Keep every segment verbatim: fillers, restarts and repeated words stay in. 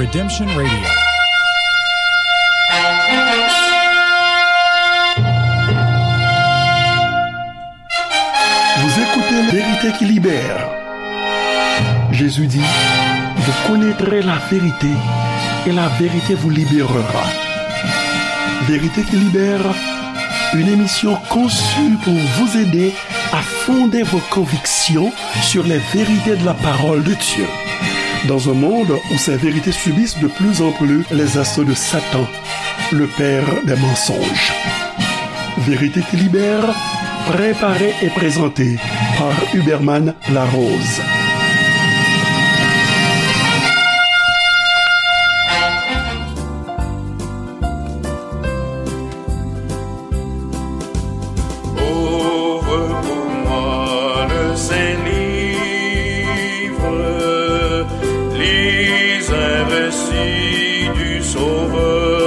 Redemption Radio. Vous écoutez La vérité qui libère. Jésus dit, vous connaîtrez la vérité et la vérité vous libérera. Vérité qui libère, une émission conçue pour vous aider à fonder vos convictions sur les vérités de la parole de Dieu. Dans un monde où ces vérités subissent de plus en plus les assauts de Satan, le père des mensonges. Vérité qui libère, préparée et présentée par Huberman Larose. Ouvre pour moi le saint livre, lis un récit du Sauveur.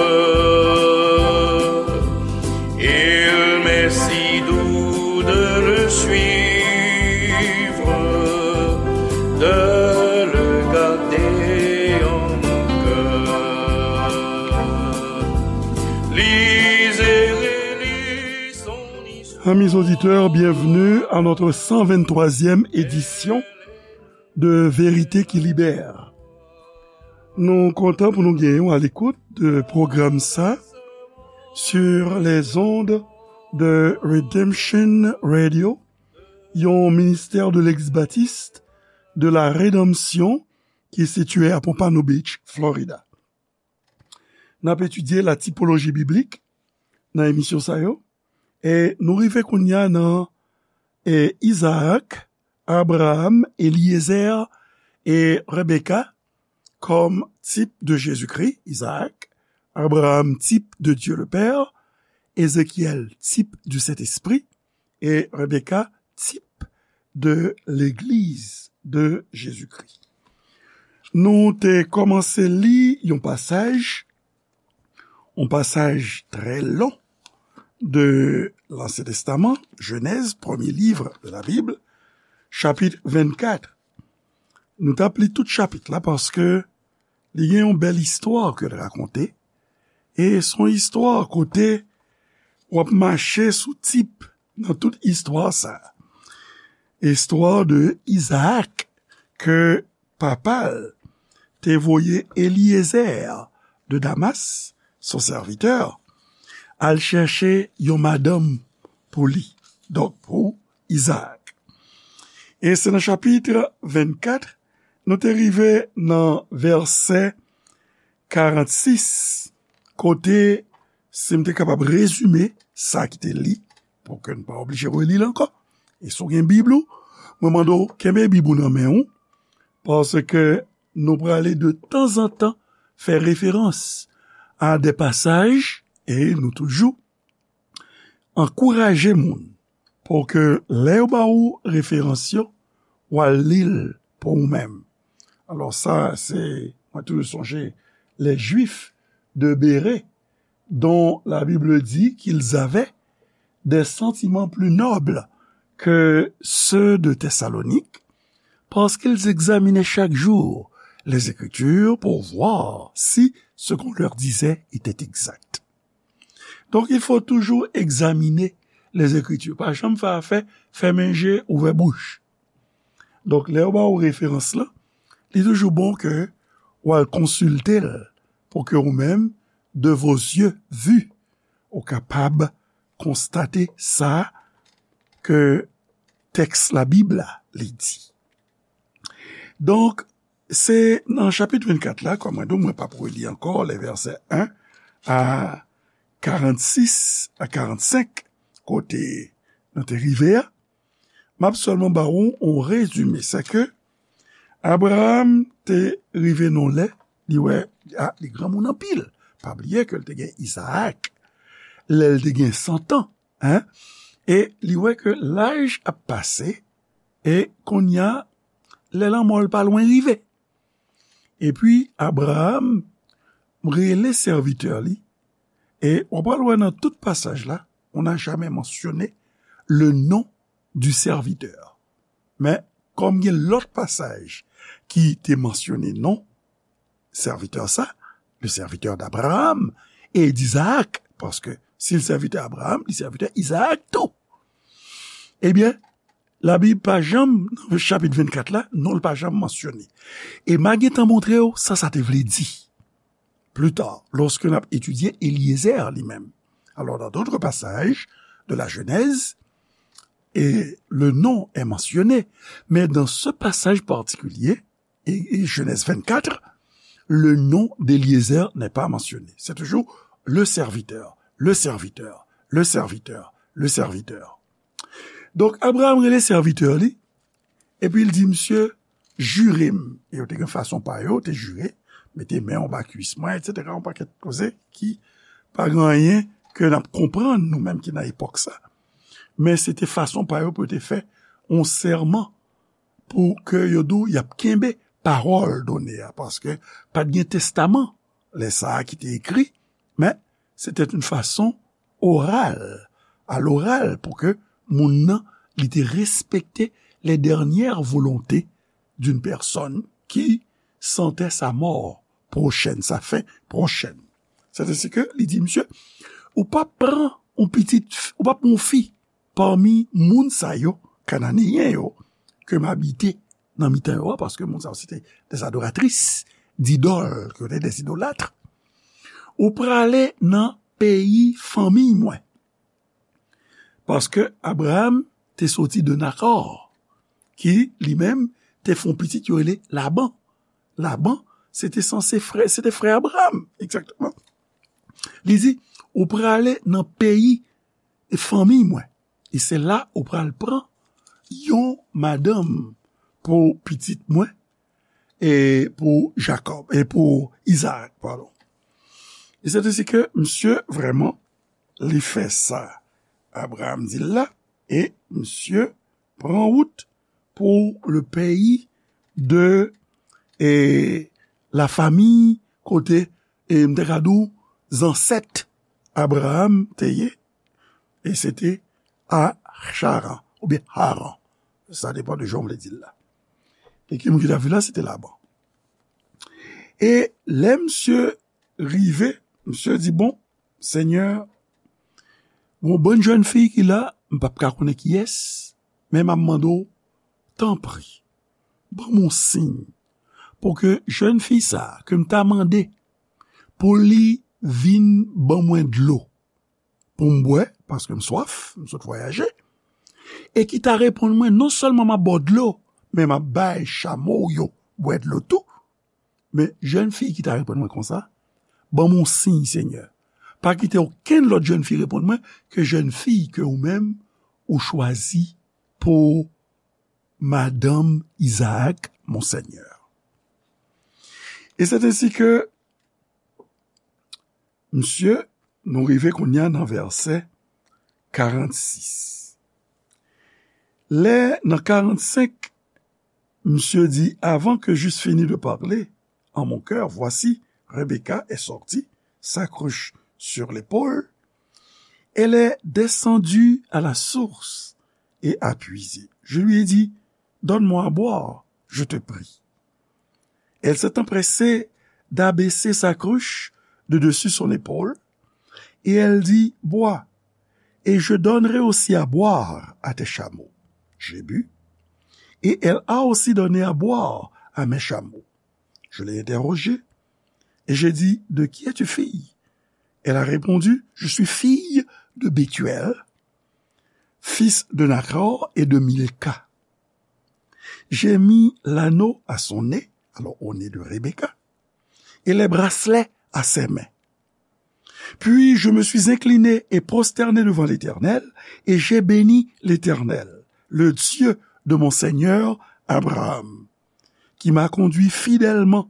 Il m'est si doux de le suivre, de le garder en mon cœur. Lis et relis son histoire. Amis auditeurs, bienvenue à notre cent vingt-troisième édition de Vérité qui libère. Nou kontan pou nou genyen w a l'écoute de pwogram sa sur les ondes de Redemption Radio, yon ministère de l'Église baptiste de la Rédemption ki sitiye a Pompano Beach, Florida. N ap etidye la tipoloji biblik nan emisyon sa yo. E nou rive kounye a nan, e, Izaak, Abraram, Eliezer e Rebeka kòm tip de Jezikri. Izaak, Abraram, tip de Dieu le Père, Ézéchiel, tip du Saint-Esprit, e Rebeka, tip de legliz de Jezikri. Nou te kòmanse li yon pasaj, yon pasaj trè lon de Lansyen Testaman, Jenèz, premye liv de la Bib, chapit vennkat. Nou t ap li tout chapit la paske li gen yon bèl istwa ke l rakonte. E se yon istwa kote w ap mache sou tip nan tout istwa sa a. Istwa de Izaak ke papa l te voye Eliezer de Damas, son sèvitè, al chèche yon madanm pou li, donk pou Izaak. E se nan chapit vennkat, nou te rive nan vèsè karannsis, kote, si m te kapab rezime sa ki te li, pou ke n pa oblije reli l ankò. E si w gen Bib ou, mwen mande w kenbe Bib ou nan men w, paske nou prale de tanzantan fè referans a de pasaj, e nou toujou ankouraje moun pou ke lè yo ba ou referans yo, w al li l pou ou menm. Alò sa, se, mwen toujou sonje les Juifs de Bérée, dont la Bible dit qu'ils avaient des sentiments plus nobles que ceux de Thessalonique, parce qu'ils examinaient chaque jour les Écritures pour voir si ce qu'on leur disait était exact. Donk, il faut toujours examiner les Écritures. Pa janm fè afè fèmen je, ouvè bouch. Donk, lè yo ba ou referans lan, li toujou bon ke w al konsilte l pou ke ou menm, de vos yeux vus, ou kapab konstate sa ke tèks Labib la li di. Donk, se nan chapit vennkat la, kòm mwen di w, mwen p ap reli ankò les versets un à quarante-six à quarante-cinq, kote nou te rive a. M ap sèlman ba ou yon rezime, se ke Abraram te rive nan lè, li wè, a, li granmoun anpil. Pa bliye ke l te gen Izaak, lè l te gen san tan, en? E li wè ke laj ap pase, e kounye a, lè lanmò l pa lwen rive. Epi Abraram rele sèvitè li, e w pral wè nan tout pasaj la, on n'a jamais mentionné le nom du serviteur. Men, kòm gen lòt pasaj ki te mansyone non, serviteur sa, le serviteur d'Abraham et d'Isaac, paske si l sèvitè Abraham, li sèvitè Izaak tou. Ebyen, Labib pa janm, nan chapit vennkat la, non l pa janm mansyone. E m a gentan montre w sa sa te vle di. Plus tard, lorsque n ap etidye Eliezer li menm. Alors, dans d'autres passages de la Genèse, et le nom est mentionné, mais dans ce passage particulier, et, et Genèse vingt-quatre, le nom d'Eliezer n'est pas mentionné. C'est toujours le serviteur, le serviteur, le serviteur, le serviteur. Donk, Abraham rele sèvitè li, epi l di, "Misye, jire m." E yo te gen fason pa yo, te jire, mete men anba kwis mwen, etsetera, yon pakèt koze ki pa gen anyen ke n ap konprann, nou menm ki nan epòk sa. Men se te fason pa yo pou yo te fè yon sèman pou ke yo di w y ap kenbe pawòl done a, paske pa t gen testaman lè sa a ki te ekri, men se te yon fason oral, à l'oral, pou ke moun nan, li te respekte les dernières volontés d'une personne qui sentait sa mort prochaine, sa fin prochaine. C'est ainsi que li di, "Misye, ou p ap pran yon pitit, ou p ap pran yon fi pami moun sa yo, Kananeyen yo, ke m abite nan mitan yo a," paske moun sa yo se te des adoratris d'idòl, ke yo te des idolâtres. "Ou prale nan peyi fanmiy mwen." Paske Abraham te soti de Nakò, ki li menm te fè yon pitit yo rele Laban. Laban, se te sanse frè, se te frè Abraham, egzakteman. Li di, "Ou prale nan peyi fanmiy mwen, e se la ou pral pran yon madanm pou pitit mwen, e pou Jakòb, e pou Izaak, padon." E se te si ke misye vrèman, li fè sa Abraham di l la, e misye pran wout pou le peyi de, e, la fami kote, e, m te ka di w, zansèt Abraham te ye, e se te a Charan, oubyen Haran. Sa depann de jan w vle di l la. E ki moun ki t ap viv la, se te Laban. E lè misye rive, misye di, "Bon, Senyè, gon bann jèn fi ki la, m p ap ka konnen kiyès, men m ap mande w, tanpri, ban m yon siy, pou ke jèn fi sa a, ke m ta mande pou li vin ban mwen dlo, pou m bwè, paske m swaf, m sot vwayaje, e ki ta reponn mwen, non sèlman m ap ba w dlo, men m ap bay chamo w yo bwè dlo tou." Men jèn fi ki ta reponn mwen konsa, "Ban m yon siy, Senyè. Pa kite okenn lòt jèn fi reponn mwen ke jèn fi ke ou menm ou chwazi pou madanm Izaak, mon Senyè." E se te si ke, misye, nou rive kounye a nan vèsè karannsis. Lè nan karannsenk, misye di, "Avant que j'eusse fini de parler en mon cœur, voici, Rebecca est sortie, sa cruche sur l'épaule. Elle est descendue à la source et a puisé. Je lui ai dit, 'Donne-moi à boire, je te prie.' Elle s'est empressée d'abaisser sa cruche de dessus son épaule, et elle dit, 'Bois, et je donnerai aussi à boire à tes chameaux.' J'ai bu, et elle a aussi donné à boire à mes chameaux. Je l'ai interrogée, et j'ai dit, 'De qui es-tu fille?' Elle a répondu, 'Je suis fille de Bethuel, fils de Nachor et de Milca.' J'ai mis l'anneau à son nez, alors au nez de Rebecca, et les bracelets à ses mains. Puis je me suis incliné et prosterné devant l'Éternel, et j'ai béni l'Éternel, le Dieu de mon seigneur Abraham, qui m'a conduit fidèlement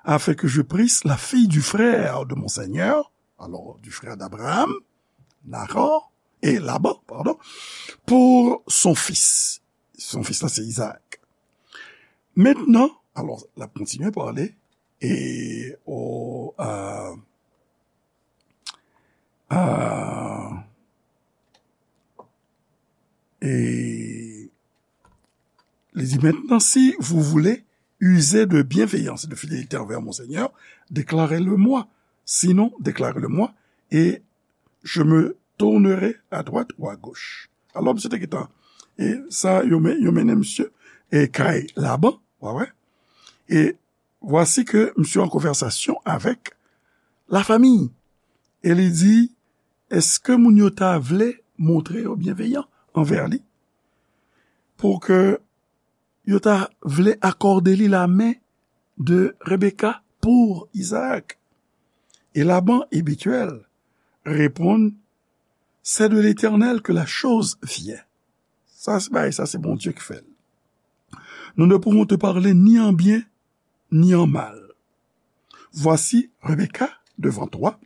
afin que je prisse la fille du frère de mon seigneur, alors du frère d'Abraham, Nahor, et Laban, pardon, pour son fils. Son fils la, c'est Isaac. Maintenant, alors, la continué parler, et au, euh, euh, et il dit, maintenant, si vous voulez, usez de bienveillance et de fidélité envers mon Seigneur, déclarez-le-moi. Sinon, déclarez-le-moi, et je me tournerai à droite ou à gauche. Alò, misye te gentan, e sa, yo men-, yo mennen misye, e kay Laban, w a wè. E vwasi ke misye an konvèsasyon avèk lafanmi. E li di, èske moun yo ta vle montre yo byenveyan anvè li? Pou ke yo ta vle akòde li lamen de Rebecca pou Isaac. E Laban e Bethuel reponn, c'est de l'Éternel que la chose vient. Sa se bagay, sa se Bondye ki fè l. Nous ne pouvons te parler ni en bien, ni en mal. Voici, Rebecca, devant toi,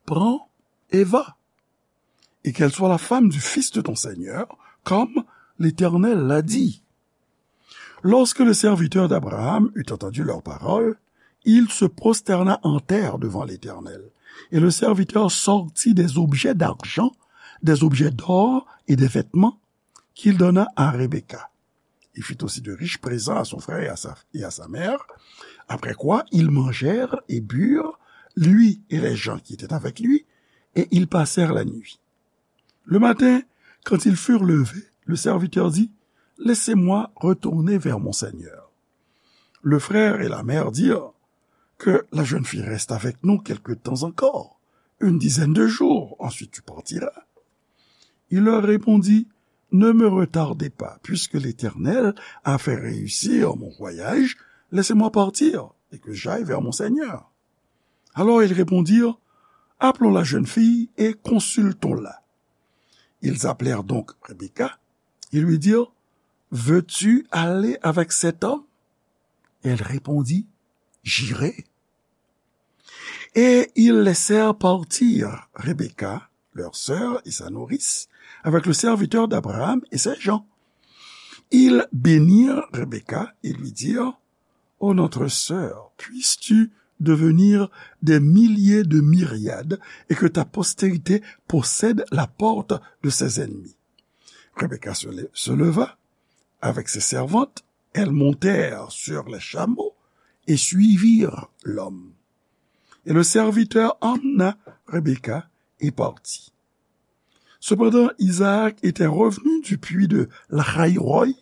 prends et va, et qu'elle soit la femme du fils de ton Seigneur, comme l'Éternel l'a dit. Lorsque le serviteur d'Abraham eut entendu leurs paroles, il se prosterna en terre devant l'Éternel. Et le serviteur sortit des objets d'argent, des objets d'or et des vêtements qu'il donna à Rebecca. Il fit aussi de riches présents à son frère et à sa, et à sa mère. Après quoi, ils mangèrent et burent, lui et les gens qui étaient avec lui, et ils passèrent la nuit. Le matin, quand ils furent levés, le serviteur dit, laissez-moi retourner vers mon seigneur. Le frère et la mère dirent, que la jeune fille reste avec nous quelque temps encore, une dizaine de jours, ensuite tu partiras. Il leur répondit, ne me retardez pas, puisque l'Éternel a fait réussir mon voyage, laissez-moi partir et que j'aille vers mon Seigneur. Alors ils répondirent, appelons la jeune fille et consultons-la. Ils appelèrent donc Rebecca et lui dirent, veux-tu aller avec cet homme? Elle répondit, j'irai. Et ils laissèrent partir Rebecca, leur sœur et sa nourrice, avec le serviteur d'Abraham et ses gens. Ils bénirent Rebecca et lui dirent, ô notre sœur, puisses-tu devenir des milliers de myriades et que ta postérité possède la porte de ses ennemis. Rebecca se, se leva avec ses servantes, elles montèrent sur les chameaux et suivirent l'homme. Et le serviteur emmena Rebecca et partit. Cependant, Isaac était revenu du puits de Lahaïroï,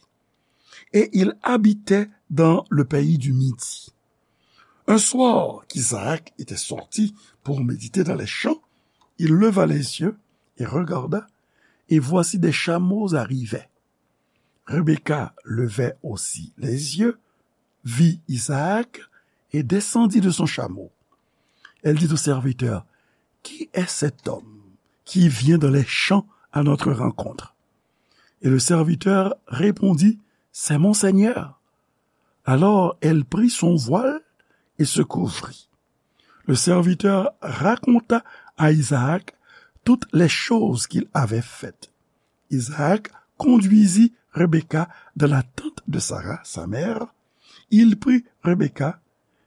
et il habitait dans le pays du Midi. Un soir qu'Isaac était sorti pour méditer dans les champs, il leva les yeux et regarda, et voici des chameaux arrivaient. Rebecca levait aussi les yeux, vit Isaac et descendit de son chameau. Elle dit au serviteur, qui est cet homme qui vient dans les champs à notre rencontre? Et le serviteur répondit, c'est mon Seigneur. Alors elle prit son voile et se couvrit. Le serviteur raconta à Isaac toutes les choses qu'il avait faites. Isaac conduisit Rebecca dans la tente de Sarah, sa mère. Il prit Rebecca,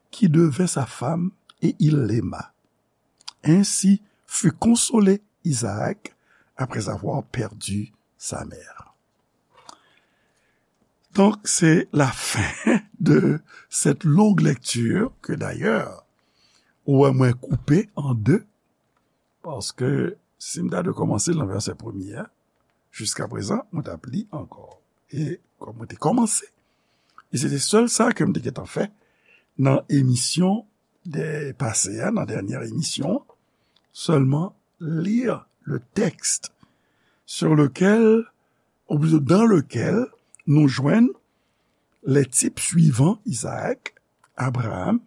qui devint sa femme, et il l'aima. Ainsi fut consolé Isaac après avoir perdu sa mère. Donc, c'est la fin de cette longue lecture que d'ailleurs, ou wè mwen koupe an de, paske si m ta dwe kòmanse nan vèsè premye a, jiska prezan, mwen t ap li ankò. E kòm mwen te kòmanse, e se te sèl sa ke m te gentan fè nan emisyon de pase a, nan dènyè emisyon an, sèlman lire le texte sur lequel, ou plito dans lequel, nou jwenn les types suivants, Isaac, Abraham,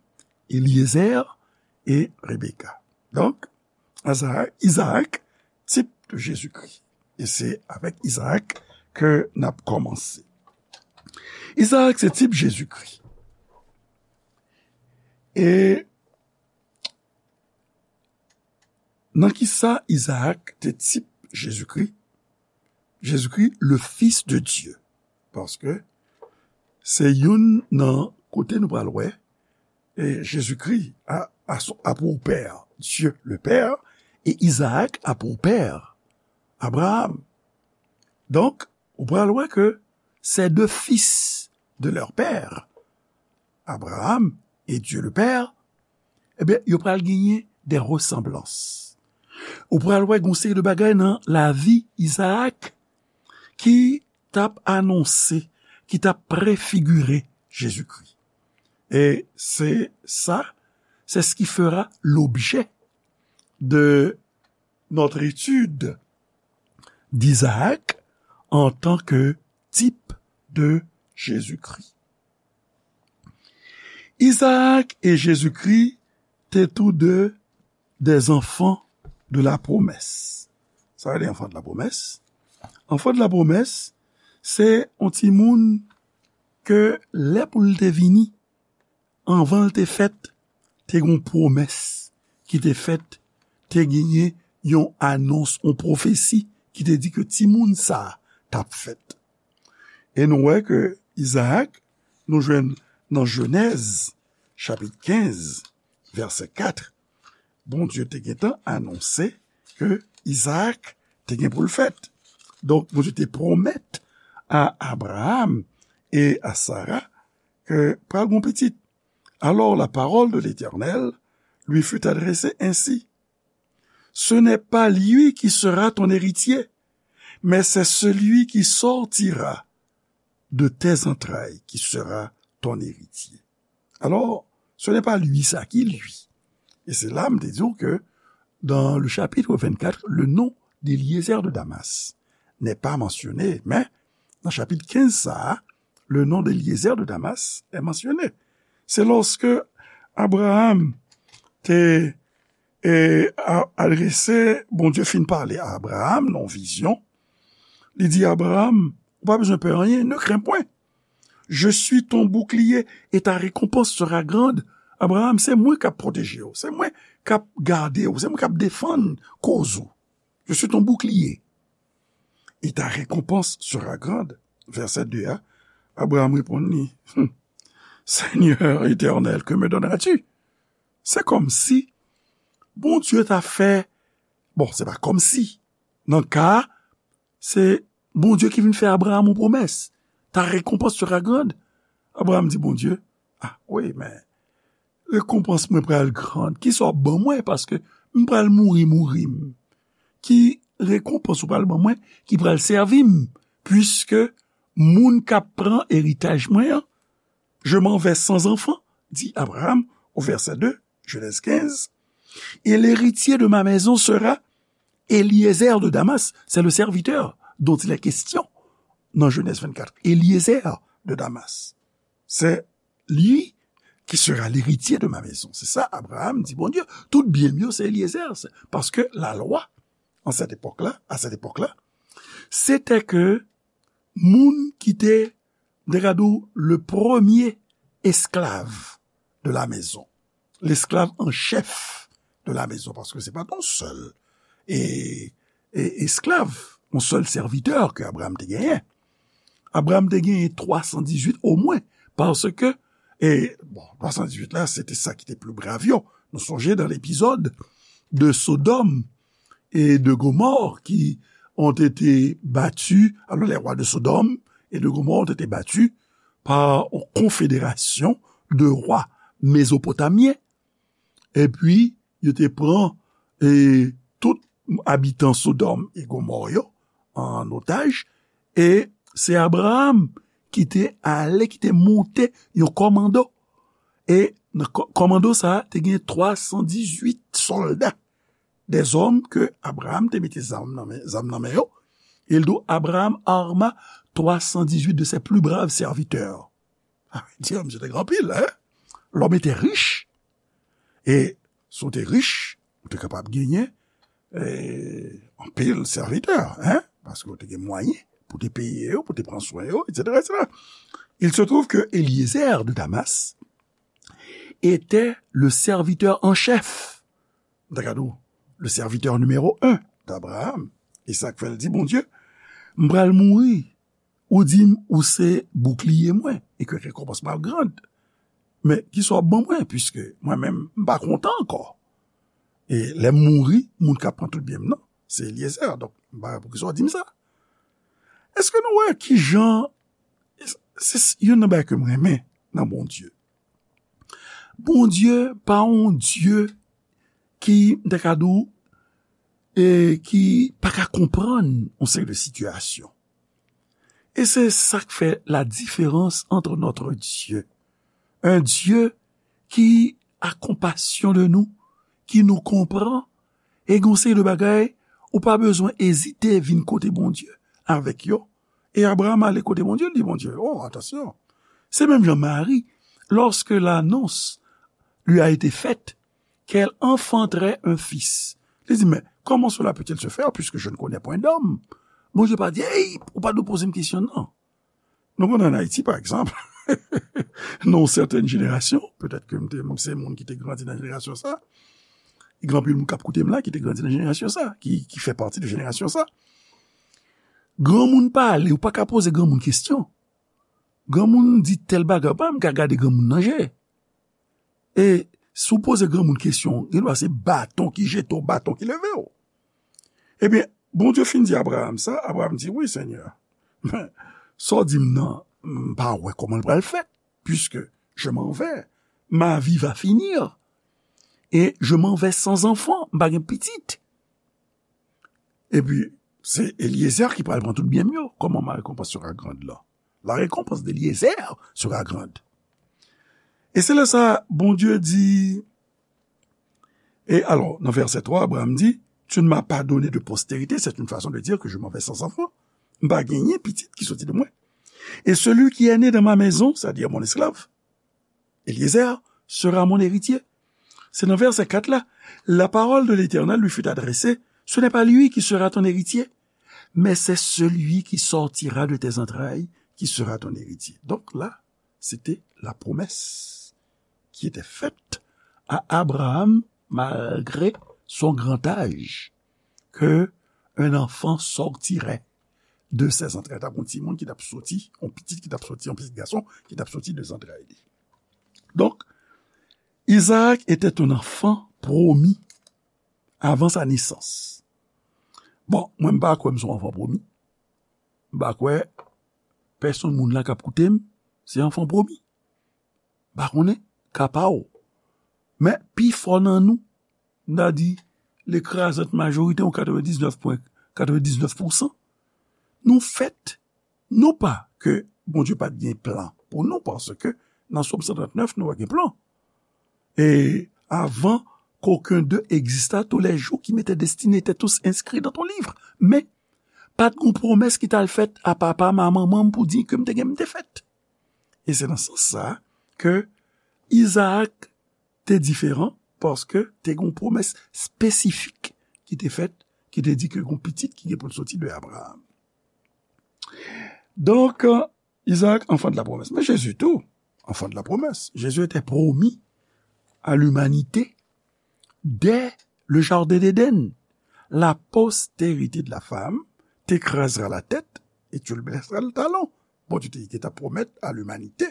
Eliezer et Rebecca. Donc, Isaac, Isaac, type de Jésus-Christ. E se avèk Isaac ke n ap kòmanse. Isaac se tip Jezikri. E nan ki sa Isaac te tip Jezikri? Jezikri, le Fils de Dieu. Paske se youn nan kote nou pral wè, e Jezikri a, a, a pour père Dieu le Père, et Isaac a pour père Abraham. Donk, ou pral wè ke ces deux fils de leur père Abraham et Dieu le Père, ebyen, yo pral genyen de resanblans. Ou pral wè gon seri de bagay nan lavi Izaak ki t ap anonse, ki t ap prefigire Jezikri. E se sa, c'est ce qui fera l'objet de notre étude d'Isaac en tant que type de Jésus-Christ. Isaac et Jésus-Christ étaient tous deux des enfants de la promesse. Sa vle di enfant de la promesse. Enfant de la promesse, se yon timoun ke lè pou l te vini, anvan l te fèt, te gen yon pwomès ki te fèt, te genyen yon anons, yon pwofesi ki te di ke timoun sa a t ap fèt. E nou wè ke Izaak, nou jwenn nan Jenèz, chapit kenz, vèsè kat, Bondye te gentan anonse ke Izaak te gen pou l fèt. Donk, Bondye te pwomèt a Abraham e a Sara ke pral gen pitit. Alors la parole de l'Éternel lui fut adressée ainsi, ce n'est pas lui qui sera ton héritier, mais c'est celui qui sortira de tes entrailles qui sera ton héritier. Alors, ce n'est pas lui ça qui lui. Et c'est là, m te di w ke dans le chapitre vingt-quatre, le nom d'Éliézer de Damas n'est pas mentionné, mais dans chapitre quinze, ça, le nom d'Éliézer de Damas est mentionné. C'est lorsque Abraham te e, a, adrese, Bondye fin pale a Abraham nan vizyon. Li di, Abraham, ou pa bezwen pè anyen, ne crains point. Je suis ton bouclier et ta récompense sera grande. Abraham, se mwen k ap pwoteje w, se mwen k ap gade w, se mwen k ap defann koz ou. Je suis ton bouclier et ta récompense sera grande. Vèsè de a, Abraham reponn li, Seigneur éternel, que me donneras-tu? Se kòmsi Bondye ta fè, bon, se pa kòmsi. Nan ka a, se Bondye ki vin fè Abraham yon pwomès. Ta récompense sera grande. Abraham di Bondye, ah, wi, men rekonpans mwen pral gran. Kisa w ap ban mwen? Paske m pral mouri, mouri m. Ki rekonpans ou pral ban mwen ki pral sèvi m? Puiske moun k ap pran eritaj mwen an, je m'en vais sans enfant, dit Abraham au verset deux, Genèse quinze, et l'héritier de ma maison sera Éliézer de Damas, c'est le serviteur dont il est question dans Genèse vingt-quatre. Éliézer de Damas, c'est lui qui sera l'héritier de ma maison. C'est ça, Abraham dit, Bondye, tout byen m yo, se Éliézer. Paske la lwa, an sèt epòk la, à cette époque-là, c'était que moun ki te, m te ka di w, le premier esclave de la maison, l'esclave en chef de la maison, paske se pa t yon sèl e, e esklav, yon sèl sèvitè ke Abraham te genyen. Abraham te genyen twa san dizuit omwen, paske, e, bon, twa san dizuit la, se te sa ki te pli brav yo. Nou sonje dans l'épisode de Sodome et de Gomorrhe qui ont été battus, alors les rois de Sodome et de Gomorrhe ont été battus par une confédération de rois mésopotamiens. Epi, yo te pran, e, tout abitan Sodòm e Gomò yo an otaj, e se Abraham ki te ale, ki te monte yon kòmando. E nan kò-, kòmando sa a, te gen twa san dizuit sòlda, des hommes que Abraham te mete zam nan men, zam nan men yo. E l di w, Abraham arma trois cent dix-huit de ses plus braves serviteurs. Ah, di, misye te gen anpil, hein? L'homme était riche. E si w te rich, ou te kapab genyen, eh, anpil sèvitè, hein? Paske w te gen mwayen pou te peye yo, pou te pran swen yo, et cetera, et cetera. Il se trouve que Eliezer de Damas était le serviteur en chef. M ta ka di w, le serviteur numéro un d'Abraham. E sa k fè l di Bondye, m pral mouri, ou di m ou se boukliye mwen, e ke rekonpans mwen ap gran. Men, kisa w ap ban mwen, piske mwen menm, m pa kontan ankò. E lè m mouri, moun k ap pran tout byen m nan, se Eliezer. Donk, m pa wè poukisa w di m sa. Èske nou wè kijan, se, se youn nan bagay ke m renmen nan Bondye. Bondye pa yon Dye ki, m ta ka di w, e ki pa ka konprann yon seri de sitiyasyon. E se sa k fè la diferans entre notre Dieu, un Dieu qui a compassion de nous, ki nou konprann, e gen yon seri de bagay ou pa bezwen ezite vin kote Bondye avèk yo. E Abraham ale kote Bondye, li di Bondye, oh, atansyon. Se menm jan Mari, lorsque l'annonce lui a été faite qu'elle enfanterait un fils. Li di, mais comment cela peut-il se faire puisque je ne connais point d'homme? Bondye pa di, hey, ou pa dwe poze m kesyon, non. Nou konn an Ayiti, pa egzanp, nan yon sètèn jenerasyon, petèt ke m te, m se moun ki te grandi nan jenerasyon sa, e gen anpil moun k ap koute m la ki te grandi nan jenerasyon sa, ki, ki fè pati de jenerasyon sa. Granmoun pale, ou pa ka poze granmoun kesyon. Granmoun di tèl bagay, ou pa menm ka gade granmoun nan je. E si w poze granmoun kesyon, gen dwa se baton ki jete w, baton ki leve w. Ebyen, Bondye fin di Abraham sa, Abraham di, wi, Senyè, men, sa w di m nan, m pa wè kòman l pral fèt, puisque je m'en vais, ma vie va finir, et je m'en vais sans enfant, m pa gen pitit. Epi, se Eliezer ki pral pran tout byen m yo. Comment ma récompense sera grande là? La récompense d'Eliezer sera grande. E se lè sa, Bondye di, e alò, nan vèsè twa, Abraham di, tu ne m'as pas donné de postérité, c'est une façon de dire que je m'en vais sans enfant. M pa genyen pitit ki soti de mwen. Et celui qui est né dans ma maison, c'est-à-dire mon esclave, Eliezer, sera mon héritier. Se nan vèsè kat la, la parole de l'Éternel lui fut adressée, ce n'est pas lui qui sera ton héritier, mais c'est celui qui sortira de tes entrailles qui sera ton héritier. Donc là, c'était la promesse qui était faite à Abraham malgré son grand âge, que un enfant sortirait de ses entrailles. T ap yon timoun ki t ap soti, yon pitit ki t ap soti, yon pitit gason ki t ap soti de zantray li. Donc, Isaac était un enfant promis avant sa naissance. Bon, mwen m pa kwè m se yon anfan pwomi. M pa kwè pèsonn moun la k ap koute m se anfan pwomi. M pa konnen ka pa w. Men pifò nan nou, m ta di lekrazant majorite, yon katrevendiznèf pwen katrevendiznèf pousan, nou fèt non pas que Bondye pa t gen plan pour nous, parce que dans Psaume cent trente-neuf, nous avons un plan. Et avant qu'aucun d'eux exista, tous les jours qui m'étaient destinés étaient tous inscrits dans ton livre. Men, pa t gon pwomès ki t al fèt a papa m, a manman m pou di ke m te gen, m te fèt. E se nan sans sa ke Izaak te diferan, paske te gen yon pwomès espesifik ki te fèt, ki te di ke gon pitit ki gen pou l soti de Abraham. Donk, Izaak, enfant de la promesse. Mais Jésus tout, enfant de la promesse. Jésus était promis à l'humanité dès le jardin d'Éden. La postérité de la femme t'écrasera la tête et tu lui blesseras le talon. Bondye te, te ta pwomèt a limanite,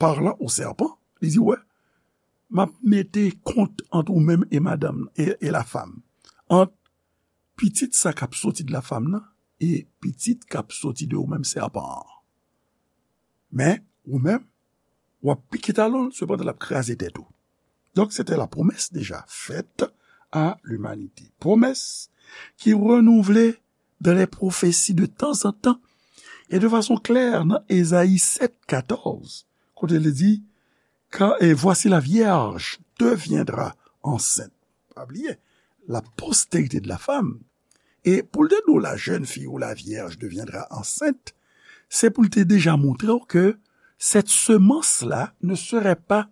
parlan o sèpan, li di, wè, m ap mete kont ant ou menm e madanm e, e la femme, ant pitit sa k ap soti de la femme nan e pitit k ap soti de ou menm sèpan an. Men, ou menm, w ap pike talon l, sepandan l ap kraze tèt ou. Donc, c'était la promesse déjà faite à l'humanité. Promesse qui renouvelait dans les prophéties de temps en temps et de façon claire dans Ésaïe sept, quatorze, kote li di, car, et voici la vierge deviendra enceinte. Pa bliye, la postérité de la femme. E pou l te di w la jeune fille ou la vierge deviendra enceinte, se pou l te deja montre w ke cette semence-là ne serait pas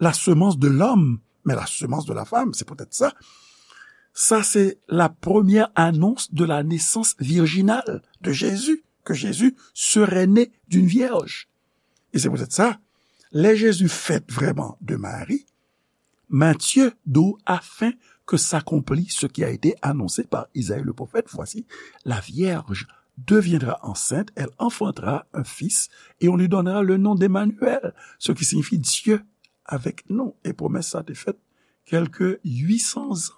la semence de l'homme, mais la semence de la femme. C'est peut-être ça. Ça, c'est la première annonce de la naissance virginale de Jésus, que Jésus serait né d'une vierge. E se poutèt sa, lè Jezi fèt vrèman de Mari, Matthieu di w, afin que s'accomplit ce qui a été annoncé par Isaïe le prophète, voici, la vierge deviendra enceinte, elle enfantera un fils, et on lui donnera le nom d'Emmanuel, ce qui signifie Dieu avec nous. E pwomès sa te fèt kèlke uit san zan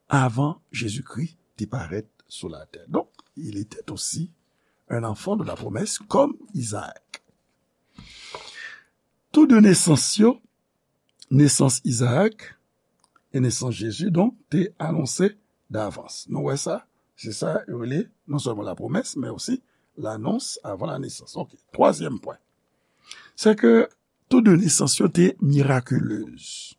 avan Jezikri te parèt sou latè. Donc, il était aussi un enfant de la promesse comme Isaac. Tou de nesans yo, nesans Izaak e nesans Jezi, donk, te anonse davans. Nou wè sa? Se sa yo rele non sèlman lapwomès, men osi lanons avan la nesans. Ok. Twazyèm pwen, se ke tou de nesans yo te mirakilez.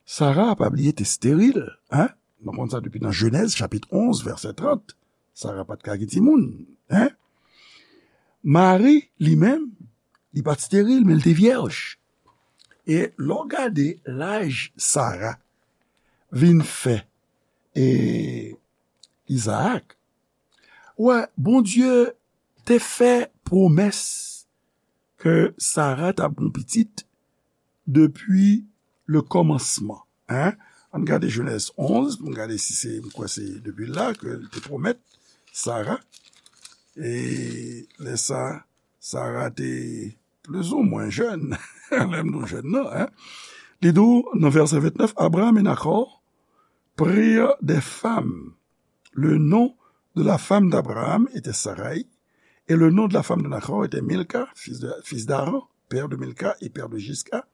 Sara, pa bliye, te steril, en? Nou konn sa depi nan Jenèz, chapit onz, vèsè trant. Sara pa t ka gen timoun, en? Mari, li menm, li pa t steril, men li te vyèj. E lè w gade laj Sara vin fè e Izaak, wè, Bondye te fè pwomès ke Sara t ap gen pitit depi le kòmansman, en? Ann gade Jenèz onz, pou n gade si se, m kwè se depi la ke l te pwomèt Sara. E lè sa, Sara te plizoumwen jèn, lè m di w jèn nan, en? Li di w nan vèsè vennèf, Abraham et Nahor prirent des femmes. Le nom de la femme d'Abraham était Sarai, et le nom de la femme de Nahor était Milka, fils de, fils d'Haran, père de Milka et père de Jiska.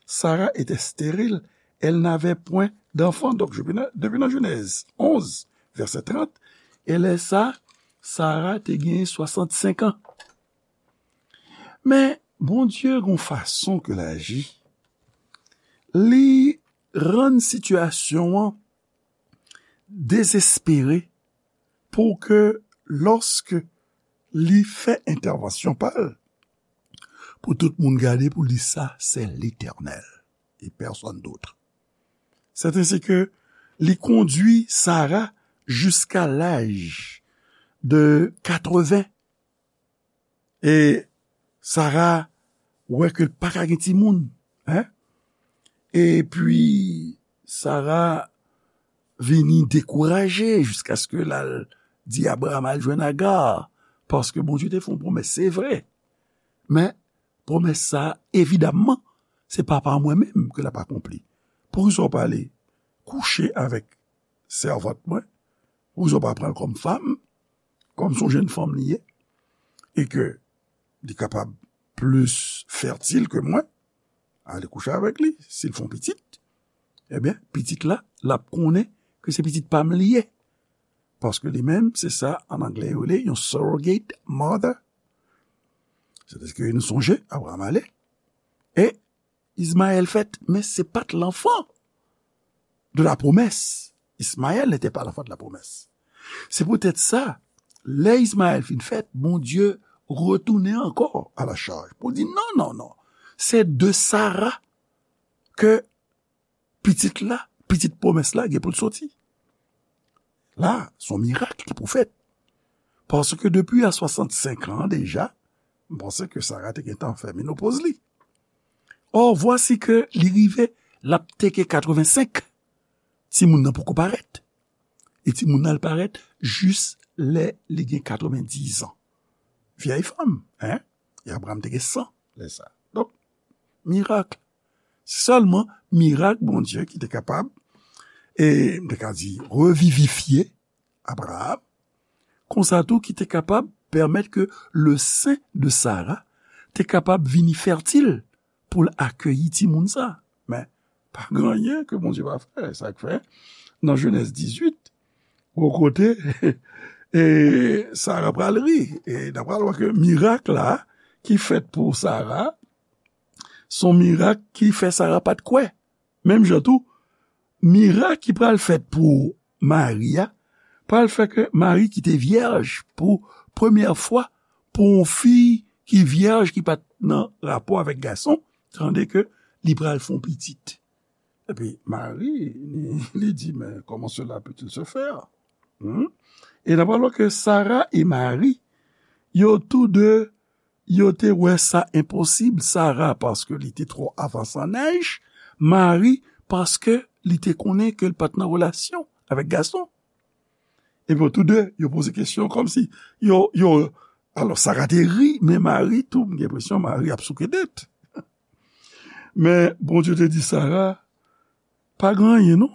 Sarah était stérile, elle n'avait point d'enfant. Donk, depi nan, depi nan Jenèz onz, vèsè trant, e lè sa, Sara te gen swasannsenk an. Men, Bondye gon fason ke l aji. Li rann sitiyasyon an dezespere pou ke lòske li fè entèvansyon pa l, pou tout moun gade pou l di sa, c'est l'Éternel et personne d'autre. C'est ainsi que li kondwi Sara jiska laj de katreven. E Sara wè ke l pa ka gen timoun, en? Epi Sara vini dekouraje jiskaske l al di Abraham al jwenn Aga, paske Bondye te fè yon pwomès, se vre. Men pwomès sa, evidamman, se pa pa mwen menm ke l ap akonpli. Poukisa w pa ale kouche avèk sèvant mwen? Poukisa w pa pran l kòm fanm, kòm se yon jèn fanm li ye, e ke li kapab plis fètil ke mwen? Ale kouche avèk li. Si l fè yon pitit, ebyen, pitit la, l ap konnen ke se pitit pa m li ye. Paske li menm, se sa, an anglè, yo rele yon surrogate mother. Sètadi ke nou sonje, Abraham ale, e Ismaël fèt, men se pa t l'enfant de la promesse. Ismaël n'était pas l'enfant de la promesse. Se poutèt sa, lè Ismaël fin fèt, Bondye retounen ankò à la charge pou di, non, non, non. Se de Sara ke pitit la, pitit pwomès la gen pou l soti. La, se yon mirak ki pou fèt. Paske depi a swasannsenk an deja, m panse ke Sara te gentan fè menopoz li. Or, vwasi ke li rive, l ap teke katrevensenk, timoun nan poko parèt. E timoun nan al parèt jis lè li gen katrevendizan. Vyèy fanm, en? E Abraham te gen san lè sa. Donk, mirak. Sèlman mirak Bondye ki te kapab, e m te ka di, revivifye Abraham, konsa tou ki te kapab pèmèt ke le sein de Sara te kapab vini fètil pou l akeyi timoun sa. Men, pa gen anyen ke Bondye pa fè. Sa k fè, nan Jenèz dizuit, gwo kote, e Sara pral ri. E n a pral wè ke mirak la ki fèt pou Sara, se yon mirak ki fè Sara pa t kwè. Menm jan tou, mirak ki pral fèt pou Mari a, pral fè ke Mari ki te vyèj pou premyè fwa, pou yon fi ki vyèj, ki pa t nan rapò avèk gason, tande ke li pral fè yon pitit. Epi Mari, li, li di, men comment cela peut-il se faire? Hmm? E n a pral wè ke Sara e Mari, yo tou de, yo te wè sa enposib, Sara paske li te twò avanse an aj, Mari paske li te konnen ke l pa t nan relasyon avèk gason. Epi yo tou de, yo poze kesyon kòmsi yo, yo, alò Sara te ri, men Mari tou, m gen enpresyon Mari ap souke tèt. Men Bondye te di Sara, pa gen anyen non.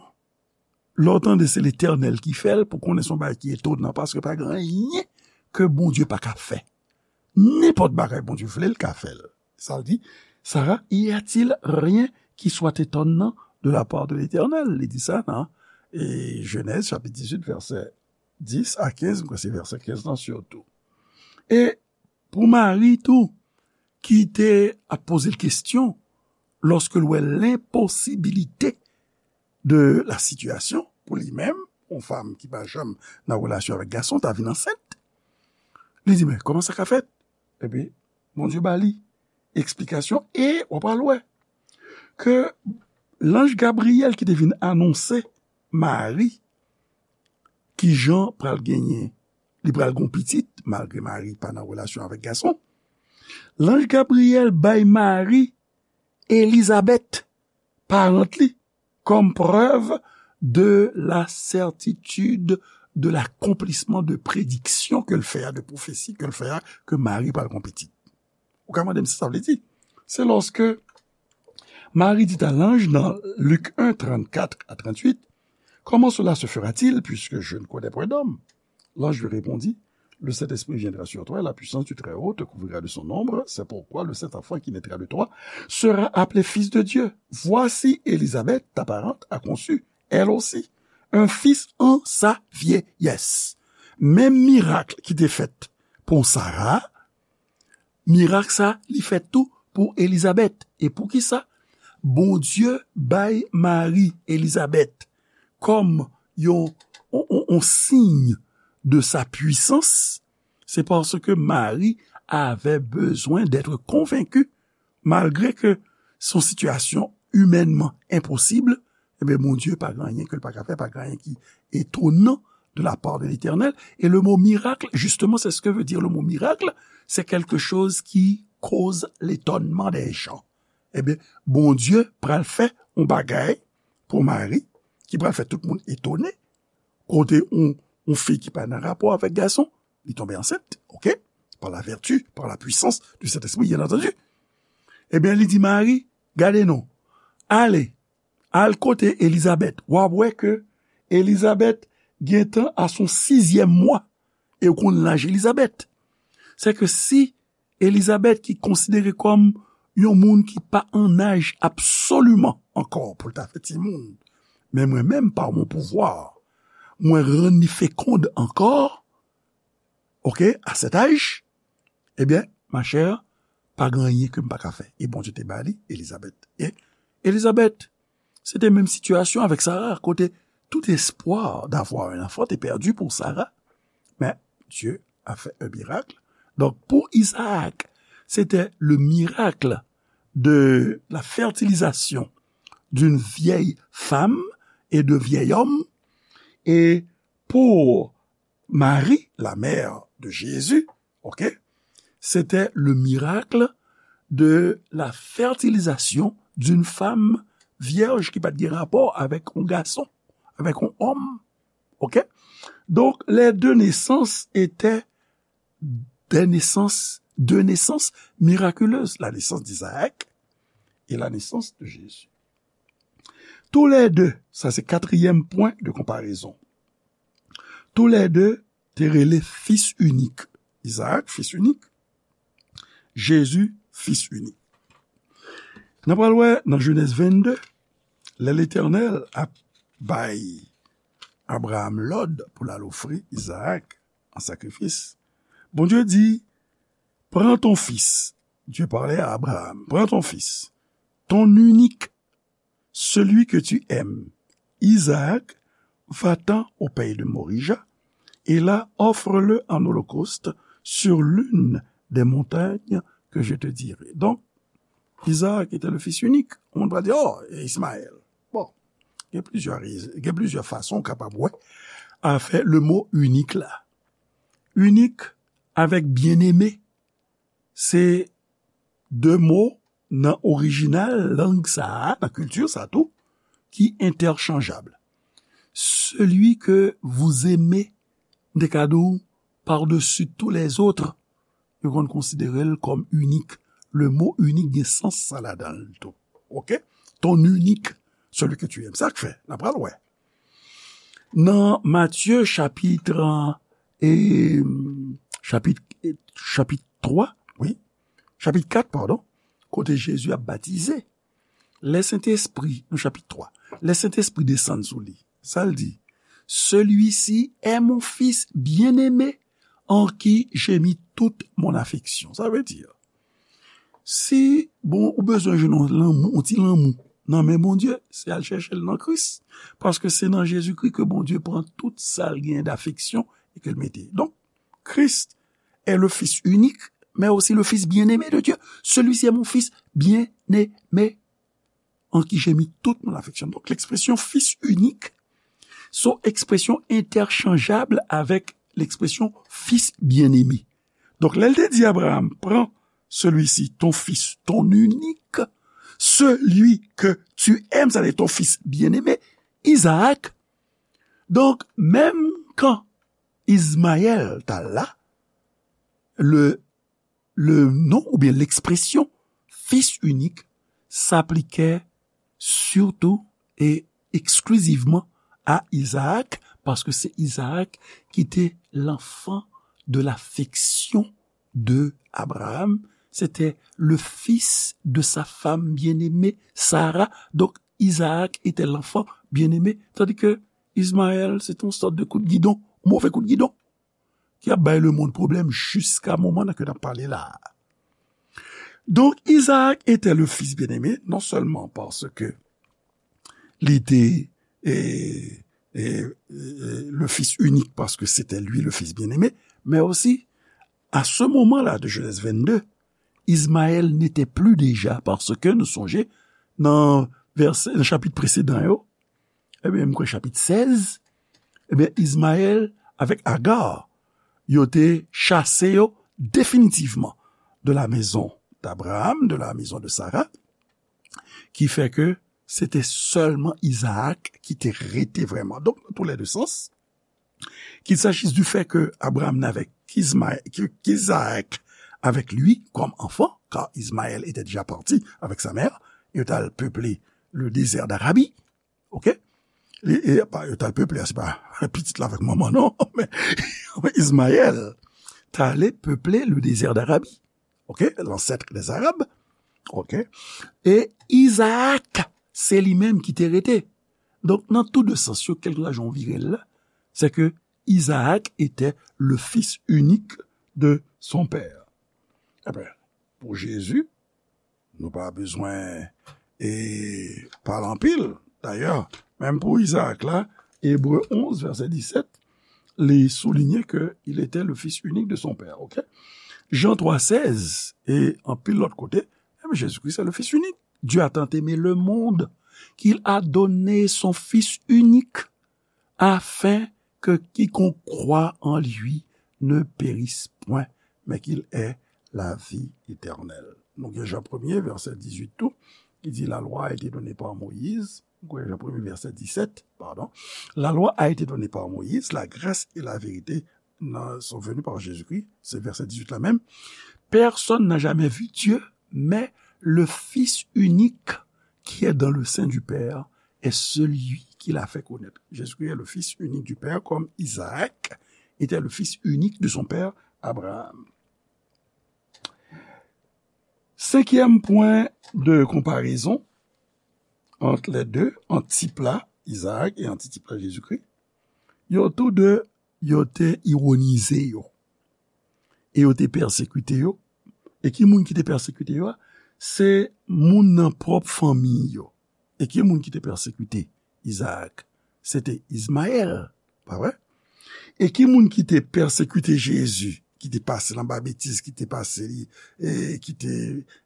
Lè w tande se Letènèl ki fè l, pou konnen se yon bagay ki etonan, paske pa gen anyen ke Bondye pa ka fè. Nenpòt bagay Bondye vle, l ka fè l. Sa l di, Sara, y a-t-il rien qui soit étonnant de la part de l'Éternel? Li di sa nan e, Jenèz chapit dizuit, vèsè dis a kenz, m kwè se vèsè kenz lan sitou. E pou Mari tou, ki te ap poze l kesyon, lòske l wè lenposibilite de la sitiyasyon, pou li menm, yon fanm ki pa janm nan relasyon avèk gason, ta vin ansent. Li di, men, kòman sa ka fèt? Epi, Bondye ba li eksplikasyon, e w ap pral wè ke lanj Gabriyèl ki te vin anonse Mari, ki jan pral genyen, li pral gon pitit, malgre Mari pa nan relasyon avèk gason. Lanj Gabriyèl bay Mari Elizabèt, parant li, comme preuve de la certitude de l'accomplissement de prédiction ke l fè a, de pwofesi ke l fè a, ke Mari pral gon pitit. Ou ka mande m sa sa vle di? Se lòske Mari dit à l'ange dans Luc un, trente-quatre à trente-huit, comment cela se fera-t-il puisque je ne connais point d'homme? L'ange lui répondit, le Saint-Esprit viendra sur toi et la puissance du Très-Haut te couvrira de son ombre. C'est pourquoi le saint enfant qui naîtra de toi sera appelé fils de Dieu. Voici, Élisabeth, ta parente, a conçu, elle aussi, un fils en sa vieillesse. Menm mirak ki te fèt pou Sara, mirak sa, li fèt tou pou Elizabèt. E poukisa? Bondye bay Mari Elizabèt kòm yon, yon, yon, yon siy de sa pwisans, se paske Mari avè bezwen d'être konvenki, malgre ke se yon sitiyasyon imènman enposib, ebyen, Bondye pa gen anyen ke l pa ka fè, pa gen anyen ki étonnant de la part de l'Éternel. Et le mot miracle, justement, c'est ce que veut dire le mot miracle, c'est quelque chose qui cause l'étonnement des gens. Ebyen, Bondye pral fè yon bagay pou Mari, ki pral fè tout moun etone, kote yon, yon fi ki pa nan rapò avèk gason, li tonbe ansent, oke? Par la vertu, par la puissance du Saint-Esprit, bien entendu. Ebyen, li di Mari, gade non, ale, al kote Elizabèt, w ap wè ke Elizabèt gentan a son sizyèm mwa, e w konn laj Elizabèt. Se ke si Elizabèt ki konsidere kòm yon moun ki pa an aj absoliman ankò pou l ta fè timoun, men mwen menm, par mon pouvoir, mwen rann li fekonn ankò, oke, à cet âge, ebyen, ma chère, pa gen anyen ke m pa ka fè. E Bondye te ba li Elizabèt. E Elizabèt, se te menm sitiyasyon avèk Sara, kote tout espoir d'avoir un enfant te perdu pour Sarah. Mais Dieu a fait un miracle. Donc, pour Isaac, c'était le miracle de la fertilisation d'une vieille femme et de vieil homme. Et pour Marie, la mère de Jésus, ok, c'était le miracle de la fertilisation d'une femme vierge ki pa t gen rapò avèk yon gason, avèk yon òm. Ok? Donc, les deux naissances étaient des naissances, deux naissances miraculeuses, la naissance d'Isaac et la naissance de Jésus. Tous les deux, sa se katriyèm pwen de konparezon. Tous les deux te rele fis inik. Isaac, fis inik. Jezi, fis inik. N ap pral wè nan Jenèz vennde, lè Letènèl ap bay Abraram lòd pou l al ofri Izaak an sakrifis, Bondye di, prends ton fils. Dieu parlait à Abraham. Prends ton fils, ton unique, celui que tu aimes, Isaac, va-t'en au pays de Morija, et là, offre-le en holocauste sur l'une des montagnes que je te dirai. Donc, Isaac était le fils unique. Ou moun pral di, oh, e Ismaël. Bon, gen plizyè rezon, gen plizyè fason w kapab wè afè le mo inik la. Inik avèk byeneme, se de mo nan orijinal lang sa a, nan kilti sa tou, ki entèchanjab. Celui que vous aimez, m te ka di w, par-dessus tous les autres, yo konn konsidere l kòm inik. Le mo inik gen sans sa ladan l tou. Ok? Ton unique, celui que tu aimes. Sa k fè, n ap pral wè. Nan Matye chapit, e, chapit, chapit twa, wi, chapit kat, padon, kote Jezi ap batize, lè Sentespri, nan chapit twa, lè Sentespri desann sou li, sa l di, celui-ci est mon fils bien-aimé, en qui j'ai mis toute mon affection. Sa vle di, si bon, ou bezwen jwenn yon lanmou, yon ti lanmou nan men Bondye, se al chèche l nan Kris. Paske se nan Jezikri ke Bondye pran tout sa l gen dafeksyon e ke l mete. Donk, Christ est le Fils unique, mais aussi le Fils bien-aimé de Dieu. Celui-ci est mon Fils bien-aimé, en qui j'ai mis toute mon affection. Donk, lekspresyon fis inik se yon ekspresyon entèchanjab avèk lekspresyon fils bien-aimé. Donk, lè l te di Abraham, prends celui-ci, ton fils, ton unique, celui que tu aimes, c'est-à-dire ton fils bien-aimé, Isaac. Donk, menm kan Izmayèl ta la, le, le non oubyen lekspresyon fils unique s'appliquait surtout et exclusivement à Isaac, paske se Isaac ki te l'enfant de l'affection de Abraham, c'était le fils de sa femme bien-aimée, Sarah. Donc, Isaac était l'enfant bien-aimé, tandis que Ismaël, se te yon sòt de kout gidon, move kout gidon, ki ap bay lemonn pwoblèm jiska moman nan ke n ap pale la a. Donk, Isaac était le fils bien-aimé, non seulement parce que li te, e, e, e, le fils unique, parce que c'était lui le fils bien-aimé, mais aussi, à ce moment-là de Genèse vingt-deux, Ismaël n'était plus déjà, parce que nou sonje, nan vèsè, nan chapit presedan yo, ebyen, m kwè chapit sèz, ebyen, Ismaël avèk Agar, yo te chase yo definitivman de la maison d'Abraham, de la maison de Sarah, ki fè ke se te sèlman Isaac ki te rete vrèman. Donk, nan tou lè de sans, qu'il s'agisse du fait que Abraham n'avait qu'Ismaël, que, qu'Isaac avec lui comme enfant, car Ismaël était déjà parti avec sa mère, et al peuplé le désert d'Arabie, ok? E, e pa, yo t al peuplé, se pa pitit la avèk manman, non, men Ismaël t ale peuplé le désert d'Arabie, ok? L'ancêtre des Arabes, ok? E Isaac, se li menm ki te rete. Donk, nan tou de sans yo, kèlkeswa jan w vire l la, c'est que Isaac était le fils unique de son père. Ebyen, pou Jezi, nou pa bezwen e pale anpil. Dayè, menm pou Isaac la, Ebre onz, vèsè disèt, li souliye ke il était le fils unique de son père, ok? Jan twa sèz, e anpil lòt kote, ebyen, Jésus-Christ est le fils unique. Dieu a tant aimé le monde qu'il a donné son Fils unique, afin que quiconque croit en lui ne périsse point, mais qu'il ait la vie éternelle. Nou gen Jan premye, vèsè dizuit tou, ki di, la loi a été donnée par Moïse. Nou gen Jan premye, vèsè disèt, pardon. La loi a été donnée par Moïse, la grâce et la vérité sont venues par Jésus-Christ. Se vèsè dizuit la menm. Personne n'a jamais vu Dieu, mais le Fils unique qui est dans le sein du Père est celui qui l'a fait connaître. Jésus-Christ est le Fils unique du Père, comme Isaac était le fils unique de son père Abraham. Cinquième point de comparaison entre les deux, ant tip la, Isaac, e ant tip la, Jezikri, yo tou de, yo te ironize yo. E yo te pèsekite yo. E ki moun ki te pèsekite yo a? Se moun nan pwòp fanmi yo. E ki moun ki te pèsekite Isaac? Se te Ismaël, pa vre? E ki moun ki te pèsekite Jezi, ki te pase l anba betiz, ki te pase li, e ki te,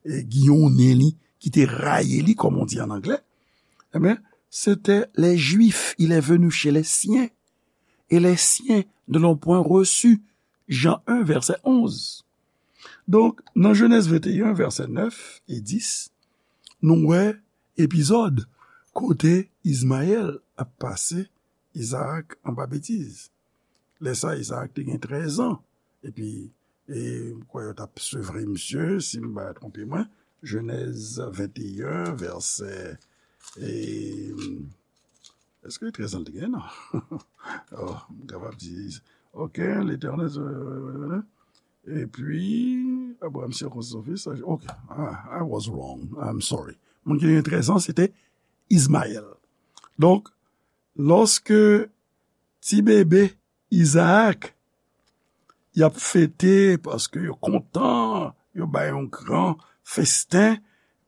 e, giyonnen li, ki te rayi li, comme on dit en anglais? Ebyen, se te les Juifs, il est venu chez les siens, et les siens ne l'ont point reçu. Jan en, vèsè onz. Donk, nan Jenèz venteyen, vèsè nèf e dis, nou wè epizòd kote Izmayèl ap pase Izaak anba betiz. Lè sa, Izaak te gen trèz an. Epi, e, m kwè yo t ap sevre misye, si m pa twonpe mwen. Jenèz venteyen, vèsè, e, èske trèz an l te gen? Non. Oh, m kapab di, ok, Letènèl, epi, Abraham sirkonsi son fis, ok, ah, I was wrong, I'm sorry. Moun ki te gen trèz an, se te Izmayèl. Donk, lòske ti bebe Izaak, y ap fete paske yo kontan, yo bay yon gran festen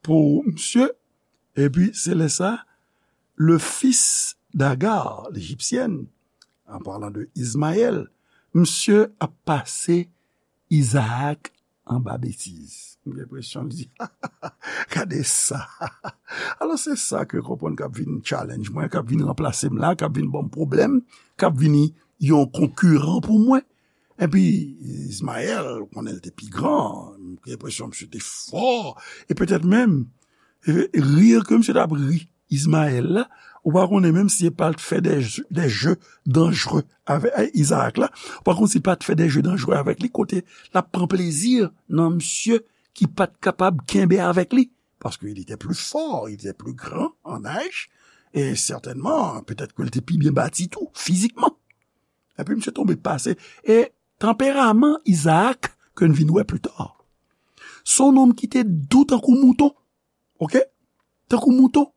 pou misye. Epi, se lè sa, le fils d'Agar, l'Égyptienne, en parlant de Ismaël, misye ap pase Izaak anba betiz. M gen enpresyon li di, gade sa. Alò, se sa ke konprann k ap vin challenge mwen, k ap vin ranplase m la, k ap vin ban m pwoblèm, k ap vini yon konkiran pou mwen. Epi, Izmayèl, ou konnen l te pi gran, m gen enpresyon misye te fò, e petèt menm, e, ri ke misye t ap ri Izmayèl la, ou pa konnen menm si l pa t fè de, de jeu danjere avèk Izaak la, ou pa konn si l pa t fè de jeu danjere avèk li, kote l ap pran plezi nan misye ki pa t kapab kenbe avèk li, paske il était plus fort, il était plus grand en âge, e sètènman, petèt ke l te pi byen bati tou, fizikman. Epi misye tonbe pase. E tanperaman Izaak, ke n vin wè pli ta, se yon nonm ki te dou tankou mouton. Ok? Tankou mouton.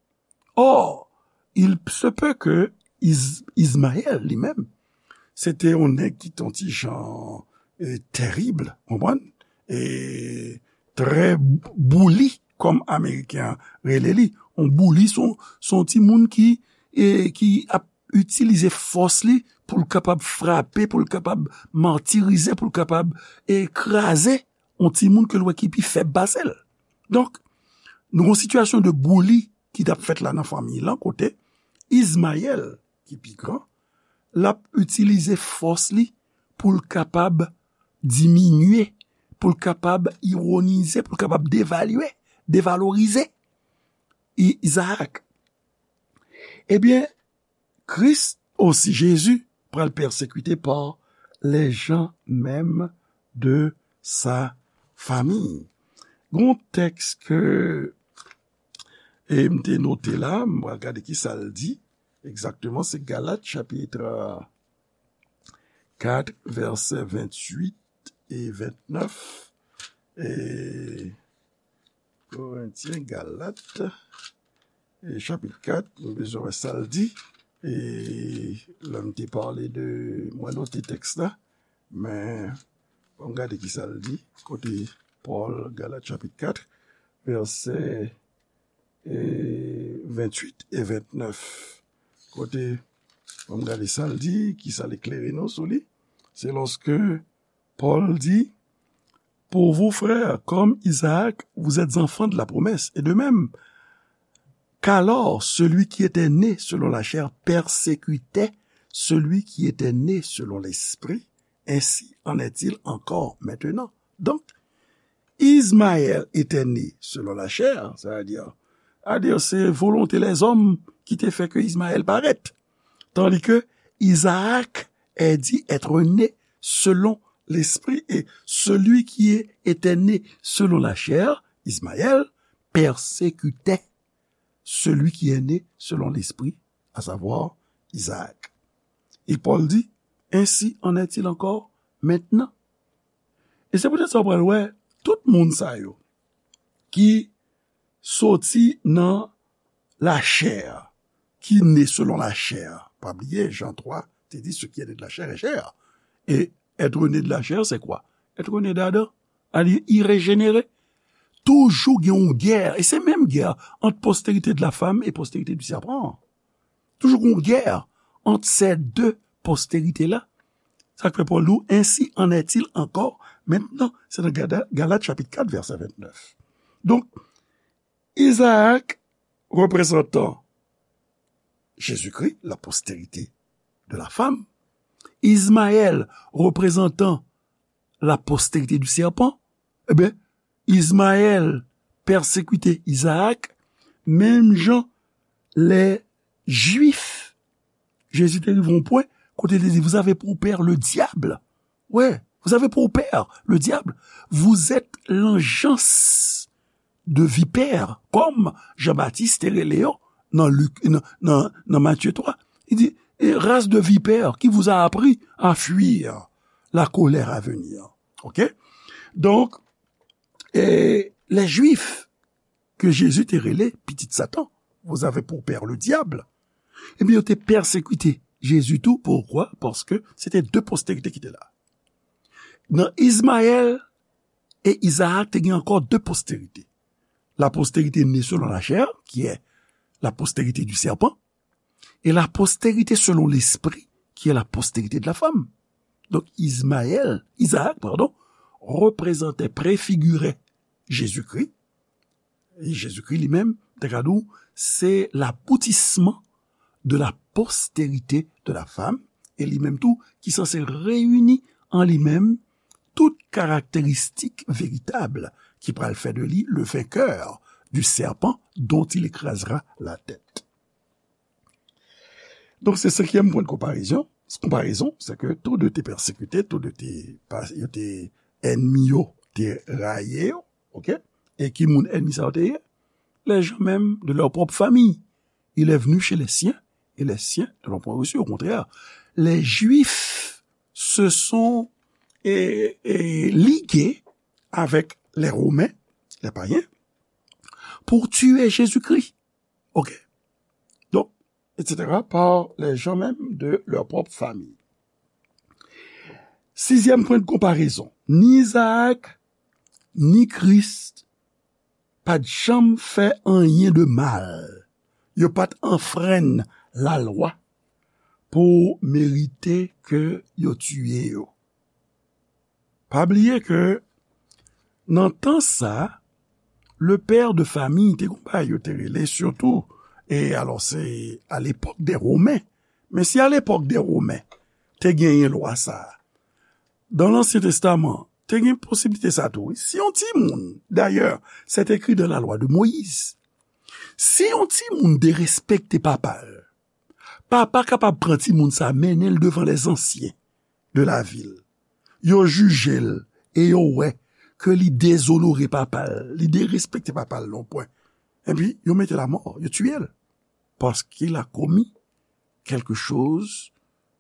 Or, il se peut que Iz-, Izmayèl li menm, se te yon nèg ki te yon ti jan, e, tèrib, konprann? E trè bouli, kòm Ameriken an rele li. Yon bouli, se yon, se yon timoun ki, e, ki ap itilize fòs li pou l kapab frape, pou l kapab matirize, pou l kapab, e, kraze yon timoun ke l wè ki pi fèb pase l. Donk, nou gen yon sitiyasyon de bouli ki t ap fèt la nan fanmi lan, kote Izmayèl, ki pi gran, l ap itilize fòs li pou l kapab diminye, pou l kapab ironize, pou l kapab devalye, devalorize I-, Izaak. Ebyen, Kris osi, Jezi, pral pèsekite pa les gens même de sa famille. Gon tèks ke, e, m te note la, m pral gade ki sa l di egzakteman. Se Galat chapit kat, vèsè venntuit e vennèf. E Korentyen, Galat, e chapit kat, nou bezwen wè sa l di. E lè m te pale de, mwen note tèks la, men ann gade ki sa l di, kote Pòl, Galat chapit kat, vèsè, e, venntuit e vennèf. Kote, ann gade sa l di, ki sa l eklere nou sou li. Se lòske Pòl di, pour vous, frères, comme Isaac, vous êtes enfants de la promesse. Et de même, qu'alors celui qui était né selon la chair persécutait celui qui était né selon l'esprit, ainsi en est-il encore maintenant. Donc, Ismaël était né selon la chair, c'est-à-dire, c'est-à-dire, se volonte lèzòm ki te fè ke Ismaël parèt. Tandis que Isaac est dit être né selon l'esprit, et celui qui est, était né selon la chair, Ismaël, persécutait celui qui est né selon l'esprit, à savoir Isaac. Et Paul dit, ainsi en est-il encore maintenant. E se poutèt sa w pral wè, tout moun sa yo ki soti nan lachè, ki ne selon lachè. Pa bliye, Jan twa te di, ce qui est né de la chair est chair. Et être né de la chair, c'est quoi? Être né d'Adam. Alye, i rejenere. Toujou gen yon gè, e se menm gè ant postérité de la femme et postérité du serpent. Toujou gen yon gè ant se de postérité la. Sa k fè Pòl di w, ainsi en est-il encore maintenant. Se nan Gada-, Galat chapit kat, vèsè vennèf. Donk, Isaac, représentant Jésus-Christ, la postérité de la femme. Ismaël, représentant la postérité du serpent. Ebyen, Ismaël pèsekite Isaac, menm jan lè Jwif, Jezi te rive yon pwen kote l te di, vous avez pour père le diable. Ouais, vous avez pour père le diable. Vous êtes l'engeance de vipère, comme Jean-Baptiste te rele yo nan Lik, nan, nan, nan Matye twa. Li di, et race de vipères, qui vous a appris à fuir la colère à venir. Ok? Donk, E lè Jwif ke Jezi te rele pitit Satan, vous avez pour père le diable, ebyen, yo te pèsekite Jezi tou. Poukwa? Paske se te de posterite ki te la. Nan Izmayèl e Izaak, te gen ankò de posterite. La postérité née selon la chair, qui est la postérité du serpent, et la postérité selon l'esprit, qui est la postérité de la femme. Donk, Izmayèl, Izaak, padon, reprezante, prefigire Jezikri. E Jezikri li menm, te ka di w, se laboutisman de la postérité de la femme, e li menm tou ki sanse reyini an li menm tout karakteristik veritab ki pral fè de li le vainqueur du serpent dont il écrasera la tête. Donk, se senkyèm pwen de konparezon, konparezon, se ke tou de te pèsekite, tou de te, pa- yo te ènmi yo, te rayi yo, ok? E ki moun ènmi sa yo te ye? Les gens même de leur propre famille. Il est venu chez les siens, et les siens ne l'ont point reçu. Au contraire, les Juifs se sont eh, eh, ligués avec les Romains, les païens, pour tuer Jésus-Christ. Ok? Donc, et cetera, par les gens même de leur propre famille. Sizyèm pwen de konparezon, ni Izaak, ni Kris pa t janm fè anyen de mal. Yo pa t anfrenn lalwa pou merite ke yo tiye yo. Pa bliye ke nan tan sa, le père de famille te gon bagay yo te rele, sitou, e alò se à l'époque des Romains. Men si à l'époque des Romains, te genyen lwa sa a, dans l'Ancien Testament, te gen posiblite sa tou, wi. Si yon timoun, d'ailleurs, c'est écrit dans la loi de Moïse, si yon timoun derespekte papa l, papa kapab pran timoun sa, mennen l devan les anciens de la ville. Yo jije l e yo wè ke li dezonore papa l, li derespekte papa l nan yon pwen. Epi, yo mete l amò, yo tiye l. Parce qu'il a commis quelque chose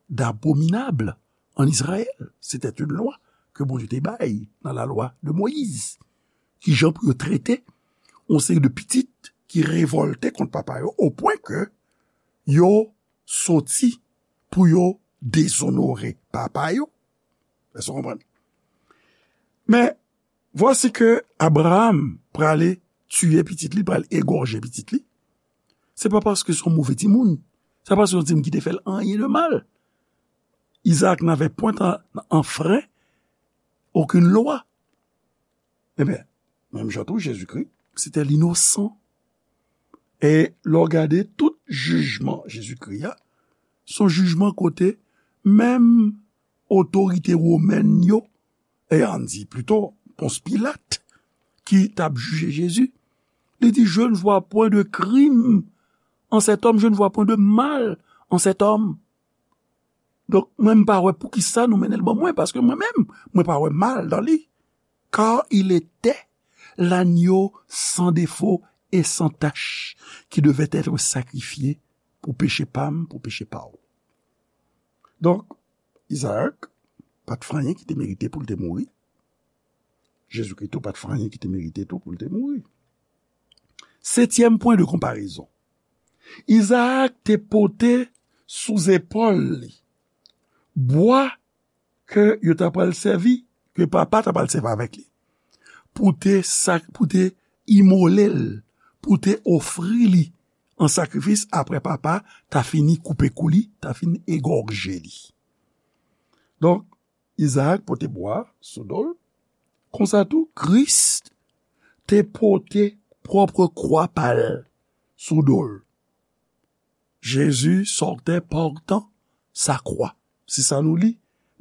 d'abominable en Israël. C'était une loi que Bondye te bay nan la loi de Moïse. Ki jan pou yo trete yon seri de pitit ki revòlte kont papa yo, o pwen ke yo soti pou yo dezonore papa yo. Èske w konprann? Men, vwasi ke Abraham prale tiye pitit li, pral egòje pitit li. Se pa paske se yon move timoun. Se pa paske se yon timoun ki te fè l anyen de mal. Isaac n'avait point enfreint aucune loi. Ebyen, menm jan tou, Jezikri, se te linosan. E lè w gade tout jijman Jezikri a, se yon jijman kote menm otorite womèn yo, e ann di plito, Pons Pilat, ki t ap jije Jezi, li di, je ne vois point de crime en cet homme, je ne vois point de mal en cet homme. Donk, mwen, m pa wè poukisa nou mennen l ban mwen, paske mwen menm, mwen pa wè mal dan li. Car il était l'agneau sans défaut et sans tache qui devait être sacrifié pou peche pa m, pou peche pa w. Donk, Isaac pa t fè anyen ki te merite pou l te mouri. Jezikri tou pa t fè anyen ki te merite tou pou l te mouri. Setyèm pwen de konparezon. Isaac te pote sou zepòl li bwa ke yo ta pral sèvi, ke papa ta pral sèvi avèk li, pou te sak-, pou te imole l, pou te ofri li an sakrifis apre papa ta fini koupe kou li, ta fini egòje li. Donk, Isaac pote bwa sou do l. Konsa tou, Kris te pote pwòp kwa pa l sou do l. Jésus sortait portant sa croix. Se sa nou li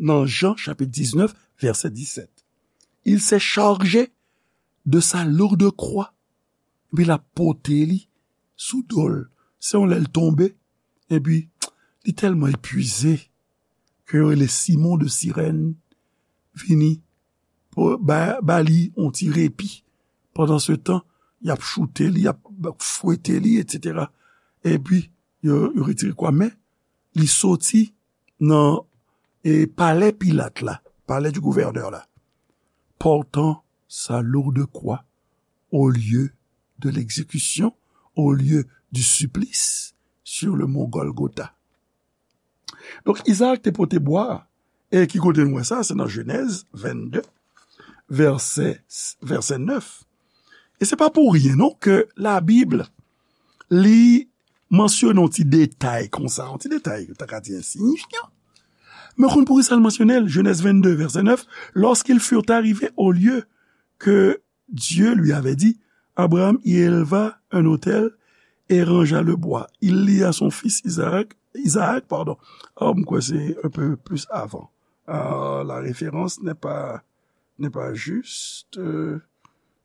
nan Jan chapit diznèf, vèsè disèt. Il s'est chargé de sa lourde croix. Epi l ap pote li sou do l. Se yon lè l tonbe, epi li tèlman epuize ke yo rele Simon de Sirèn vini pou ba, ba li yon ti repi. Pandan se tan, y ap choute li, y ap fwete li, etsetera. Epi, yo, yo retire kwa, men li soti nan, e, palè Pilat la, palais du gouverneur la, portant sa lourde kwa, au lieu de l'exécution, au lieu du supplice, sur le mont Golgotha. Donk, Izaak te pote bwa a. E ki kote nou wè sa? Se nan Jenèz vennde, vèsè, vèsè nèf. E se pa pou ryen, non, ke Labib, li mansyone yon ti detay konsa, yon ti detay, yo ta ka di ensiyifyan. Men konn poukisa l mansyone l? Jenèz vennde, vèsè nèf, lorsqu'ils furent arrivés au lieu que Dieu lui avait dit, Abraham y éleva un autel et rangea le bois. Il lia son fils Isaac, Isaac, pardon. Ah, m kwè se un peu plus avant. Ah, la référence n'est pas, n'est pas juste. Euh,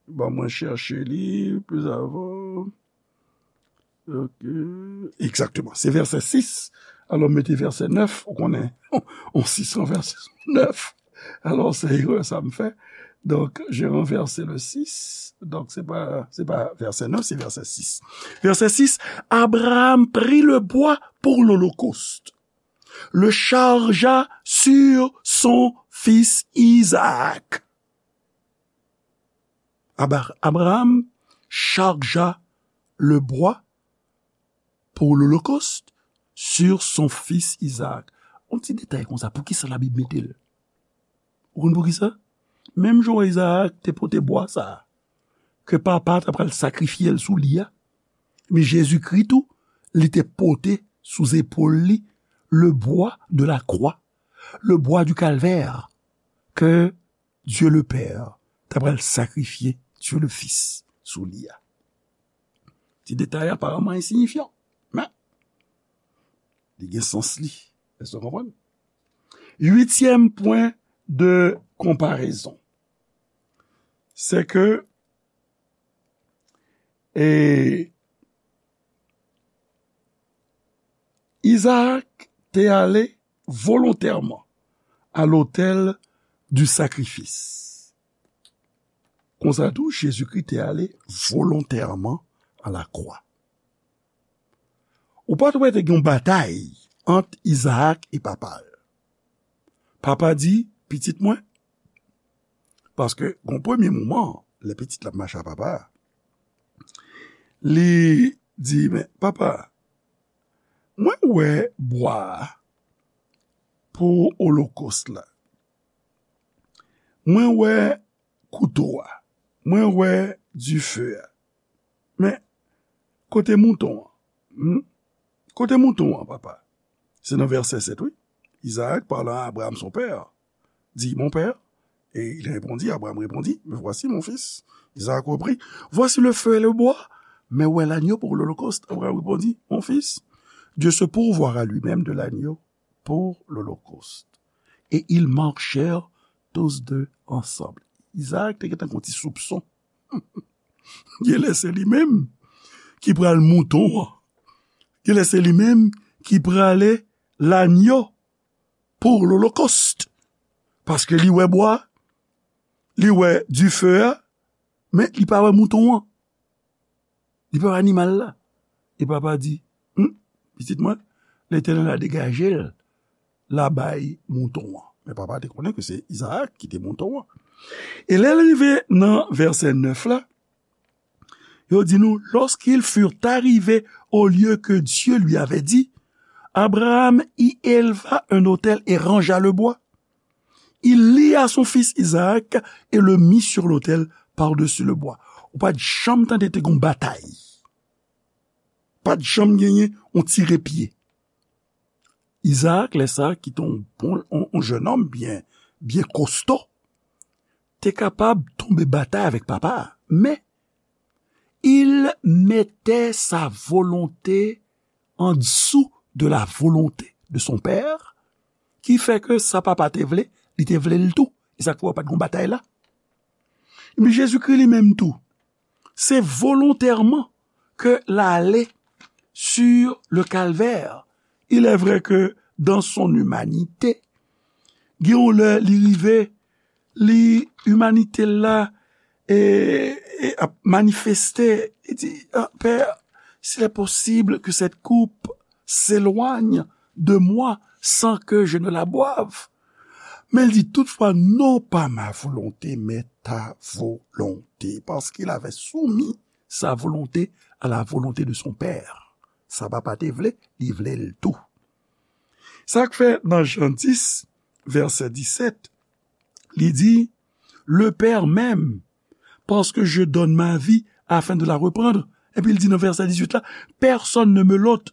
bon, mwen chèche li plus avant. Ok. Exactement. Se vèsè sis. Alò, mete vèsè nèf. Ou konnen, on sis an vèsè nèf. Alò, se erè sa m fè. Donc, j'ai renversé le six. Donc, c'est pas, c'est pas verset neuf, c'est verset six. Verset six, Abraham prit le bois pour l'holocauste, le chargea sur son fils Isaac. Abra- Abraham chargea le bois pour l'holocauste sur son fils Isaac. On ti detay konsa, poukisa Labib mete l? Ou konn poukisa? Menm jan Izaak te pote bwa sa a, ke papa ta pral sakrifye l sou li a, men Jezikri tou, li te pote sou zepòl li le bois de la croix, le bois du calvaire, ke Dieu le Père ta pral sakrifye Dieu le Fils sou li a. Ti detay aparamman ensiyifyan, men li gen sans li. Èske w konprann? Uityèm pwen de konparezon, se ke, e, Izaak te ale volontèman a lotèl di sakrifis. Konsa tou, Jezikri te ale volontèman a lakwa. Ou pa t wè te gen yon batay ant Izaak e papa l. Papa di, pitit mwen, paske gon premye moman, lè pitit la ap mache a papa a, li di, men papa, mwen wè bwa a pou olokòs la. Mwen wè kouto a. Mwen wè dife a. Men, kote mouton an? Hmm? Kote mouton an, papa? Se nan vèsè sèt, wi. Isaac, parlant à Abraham son père, dit, mon père, et il répondit, Abraham répondit, mais voici mon fils. Isaac reprit, voici le feu et le bois, mais où est l'agneau pour l'holocauste? Abraham répondit, mon fils, Dieu se pourvoira lui-même de l'agneau pour l'holocauste. Et ils marchèrent tous deux ensemble. Isaac te gentan gon ti soupson. Genlè se li menm ki pral mouton an. Genlè se li menm ki prale lanyo pou lolokòst. Paske li wè bwa, li wè dife a, men li pa wè mouton an. Li pa wè animal la. E papa di, hmm, pitit mwen, Letènèl la degaje l, la bay mouton an. Men papa te konnen ke se Izaak ki te mouton an. E lè l rive nan vèsè nèf la, yo di nou, lorsqu'ils furent arrivés au lieu que Dieu lui avait dit, Abraham y éleva un autel et rangea le bois. Il lia son fils Isaac et le mit sur l'autel par-dessus le bois. Ou pa t janm tande te gon batay. Pa t janm genyen on tire pye. Izaak, lè sa, ki te on bon, on, on jennonm byen, byen kosto, te kapab tonbe batay avèk papa a. Men, il mettait sa volonté en dessous de la volonté de son père, ki fè ke sa papa te vle, li te vle l tou. E sa k fè w pa t gon batay la. Men Jezikri li menm tou, se volontèman ke l ale sur le calvaire. Il est vrai que dans son humanité, gen yon lè li rive, li, imanite l la, e, e ap manifeste, li di, ah, Père, s'il est possible que cette coupe s'éloigne de moi sans que je ne la boive. Mais il dit, toutefois, non pas ma volonté, mais ta volonté. Parce qu'il avait soumis sa volonté à la volonté de son Père. Sa papa te vle, li vle l tou. Sa k fè nan Jan dis, vèsè disèt, li di, le Père m'aime, parce que je donne ma vie afin de la reprendre. Epi l di nan vèsè dizuit la, personne ne me l'ôte,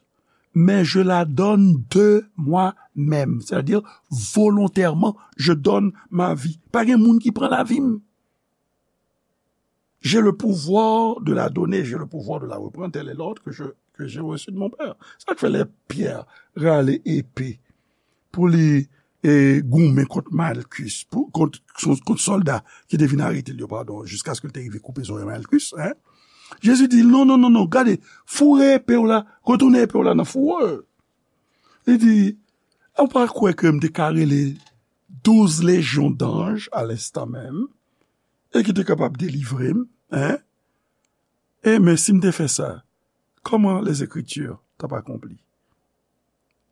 mais je la donne de moi-même. C'est-à-dire, volontairement, je donne ma vie. Pa gen moun ki pran lavi m. J'ai le pouvoir de la donner, j'ai le pouvoir de la reprendre. Tel est l'ordre que je, que j'ai reçu de mon Père. Sa k fè lè Pyè rale epe pou li e goumen kont Malkis, pou, kont, kont sòlda ki te vin arete l yo, padon, jiskaske l te rive koupe zòrèy Malkis, hein? Jezi di, non, non, non, non, gade, foure epe w la, retounen epe w la nan fouwa. Li di, ou pa kwè ke m te ka rele douz lejyon danj a lenstan menm, e ki te kapab delivre m, hein? E men si m te fè sa, kòman les Écritures t ap akonpli?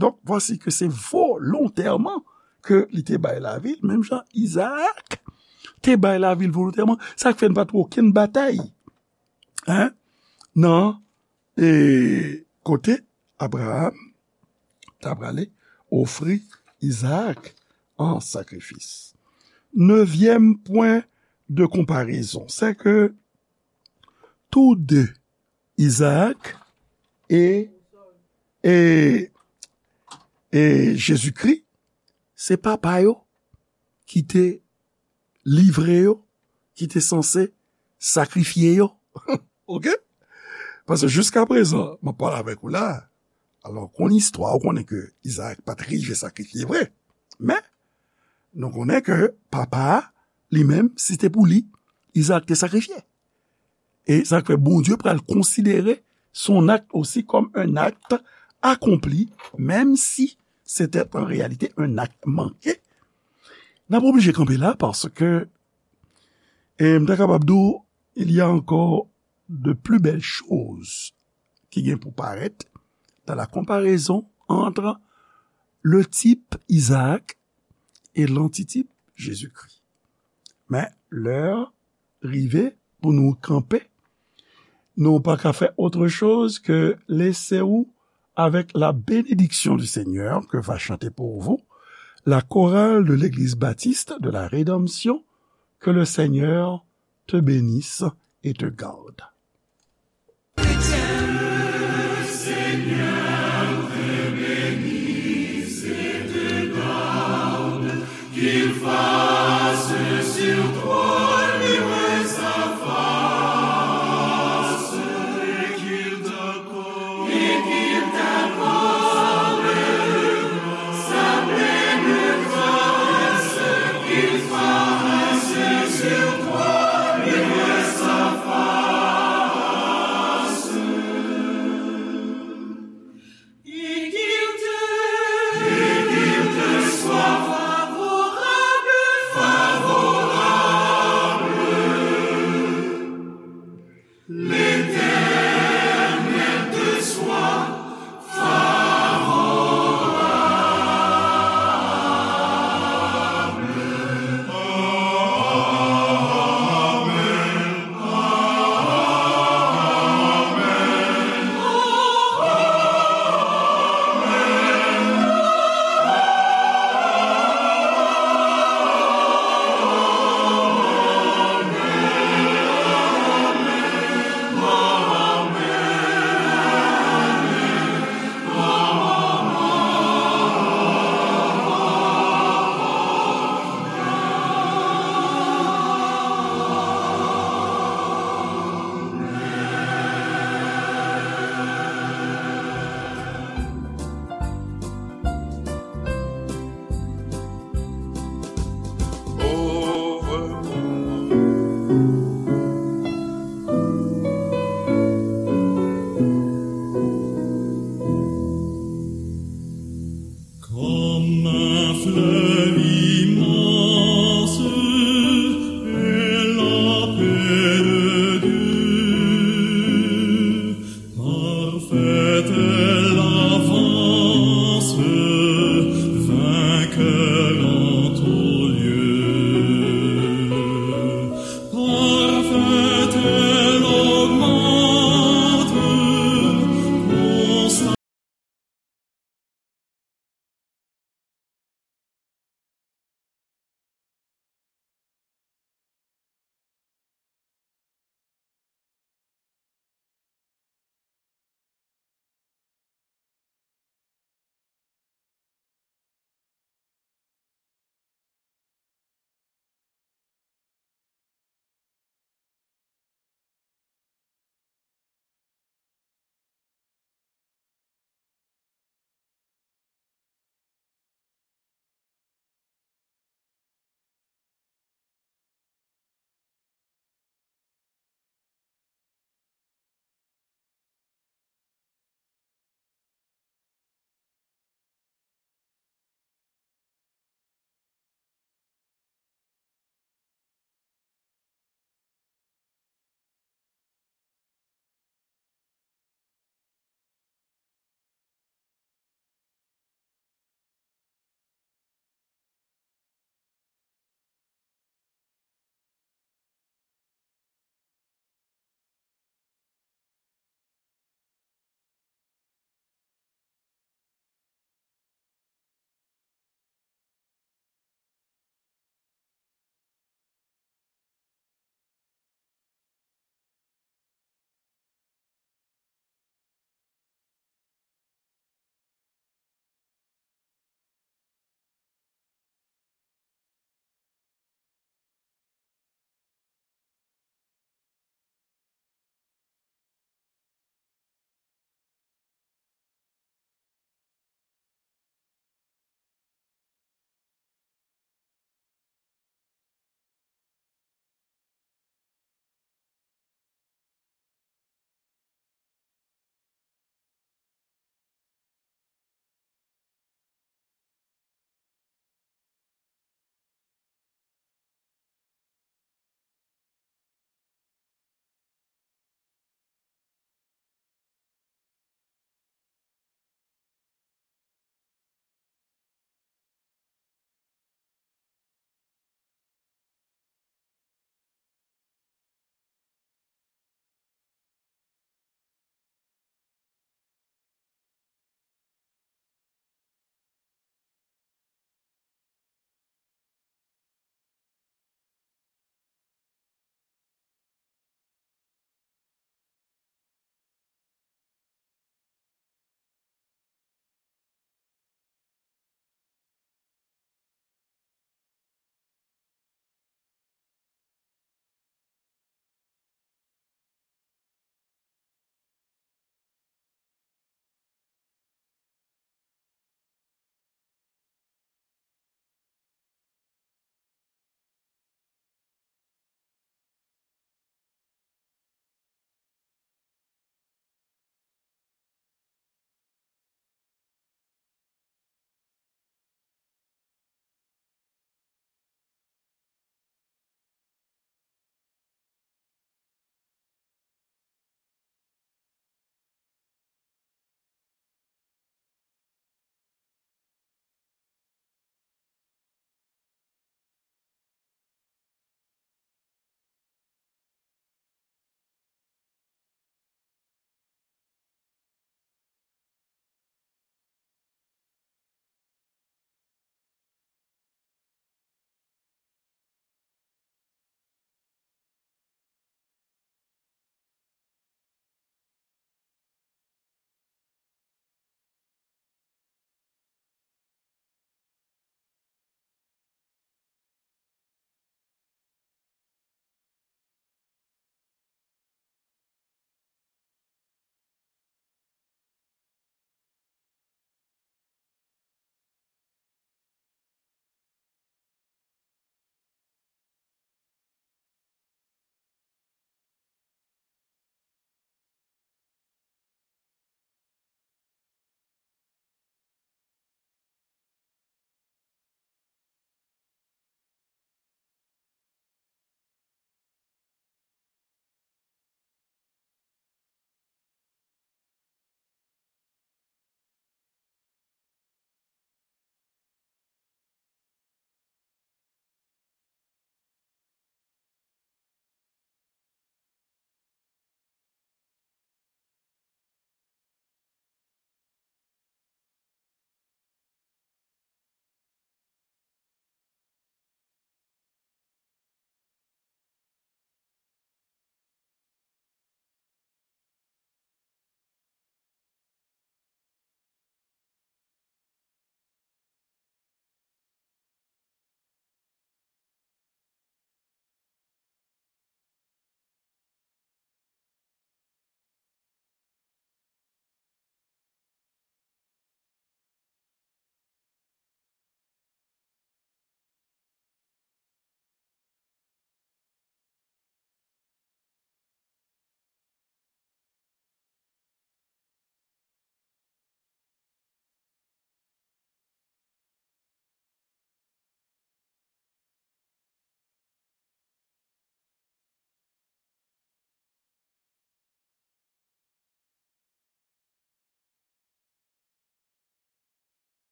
Donk, vwasi ke se volontèman ke li te bay lavi l, menm jan Izaak te bay lavi l volontèman. Sa k fè n pa t wè okenn batay, hein, nan, e, kote Abraham ta prale ofri Izaak an sakrifis. Nevyèm pwen de konparezon, c'est que tous deux, Izaak e, e, e Jezikri, se papa yo ki te livre yo, ki te sanse sakrifye yo. Oke? Paske jiska prezan, m ap pale avèk ou la, alò, konn istwa, ou konnen ke Izaak pa t rive sakrifye vre. Men, nou konnen ke papa a, li menm, si se te pou li, Izaak te sakrifye. E sa k fè Bondye pral konsidere son acte aussi comme un acte accompli, même si c'était en réalité un acte manqué. N ap oblije kanpe la paske, e, m ta kapab di w, il y a encore de plus belles choses ki gen pou parèt dans la comparaison entre le type Isaac et l'antitype Jésus-Christ. Men, lè rive pou nou kanpe, nou pa ka fè autre chose que laisser ou avec la bénédiction du Seigneur que va chanter pour vous la chorale de l'Église baptiste de la Rédemption. Que le Seigneur te bénisse et te garde.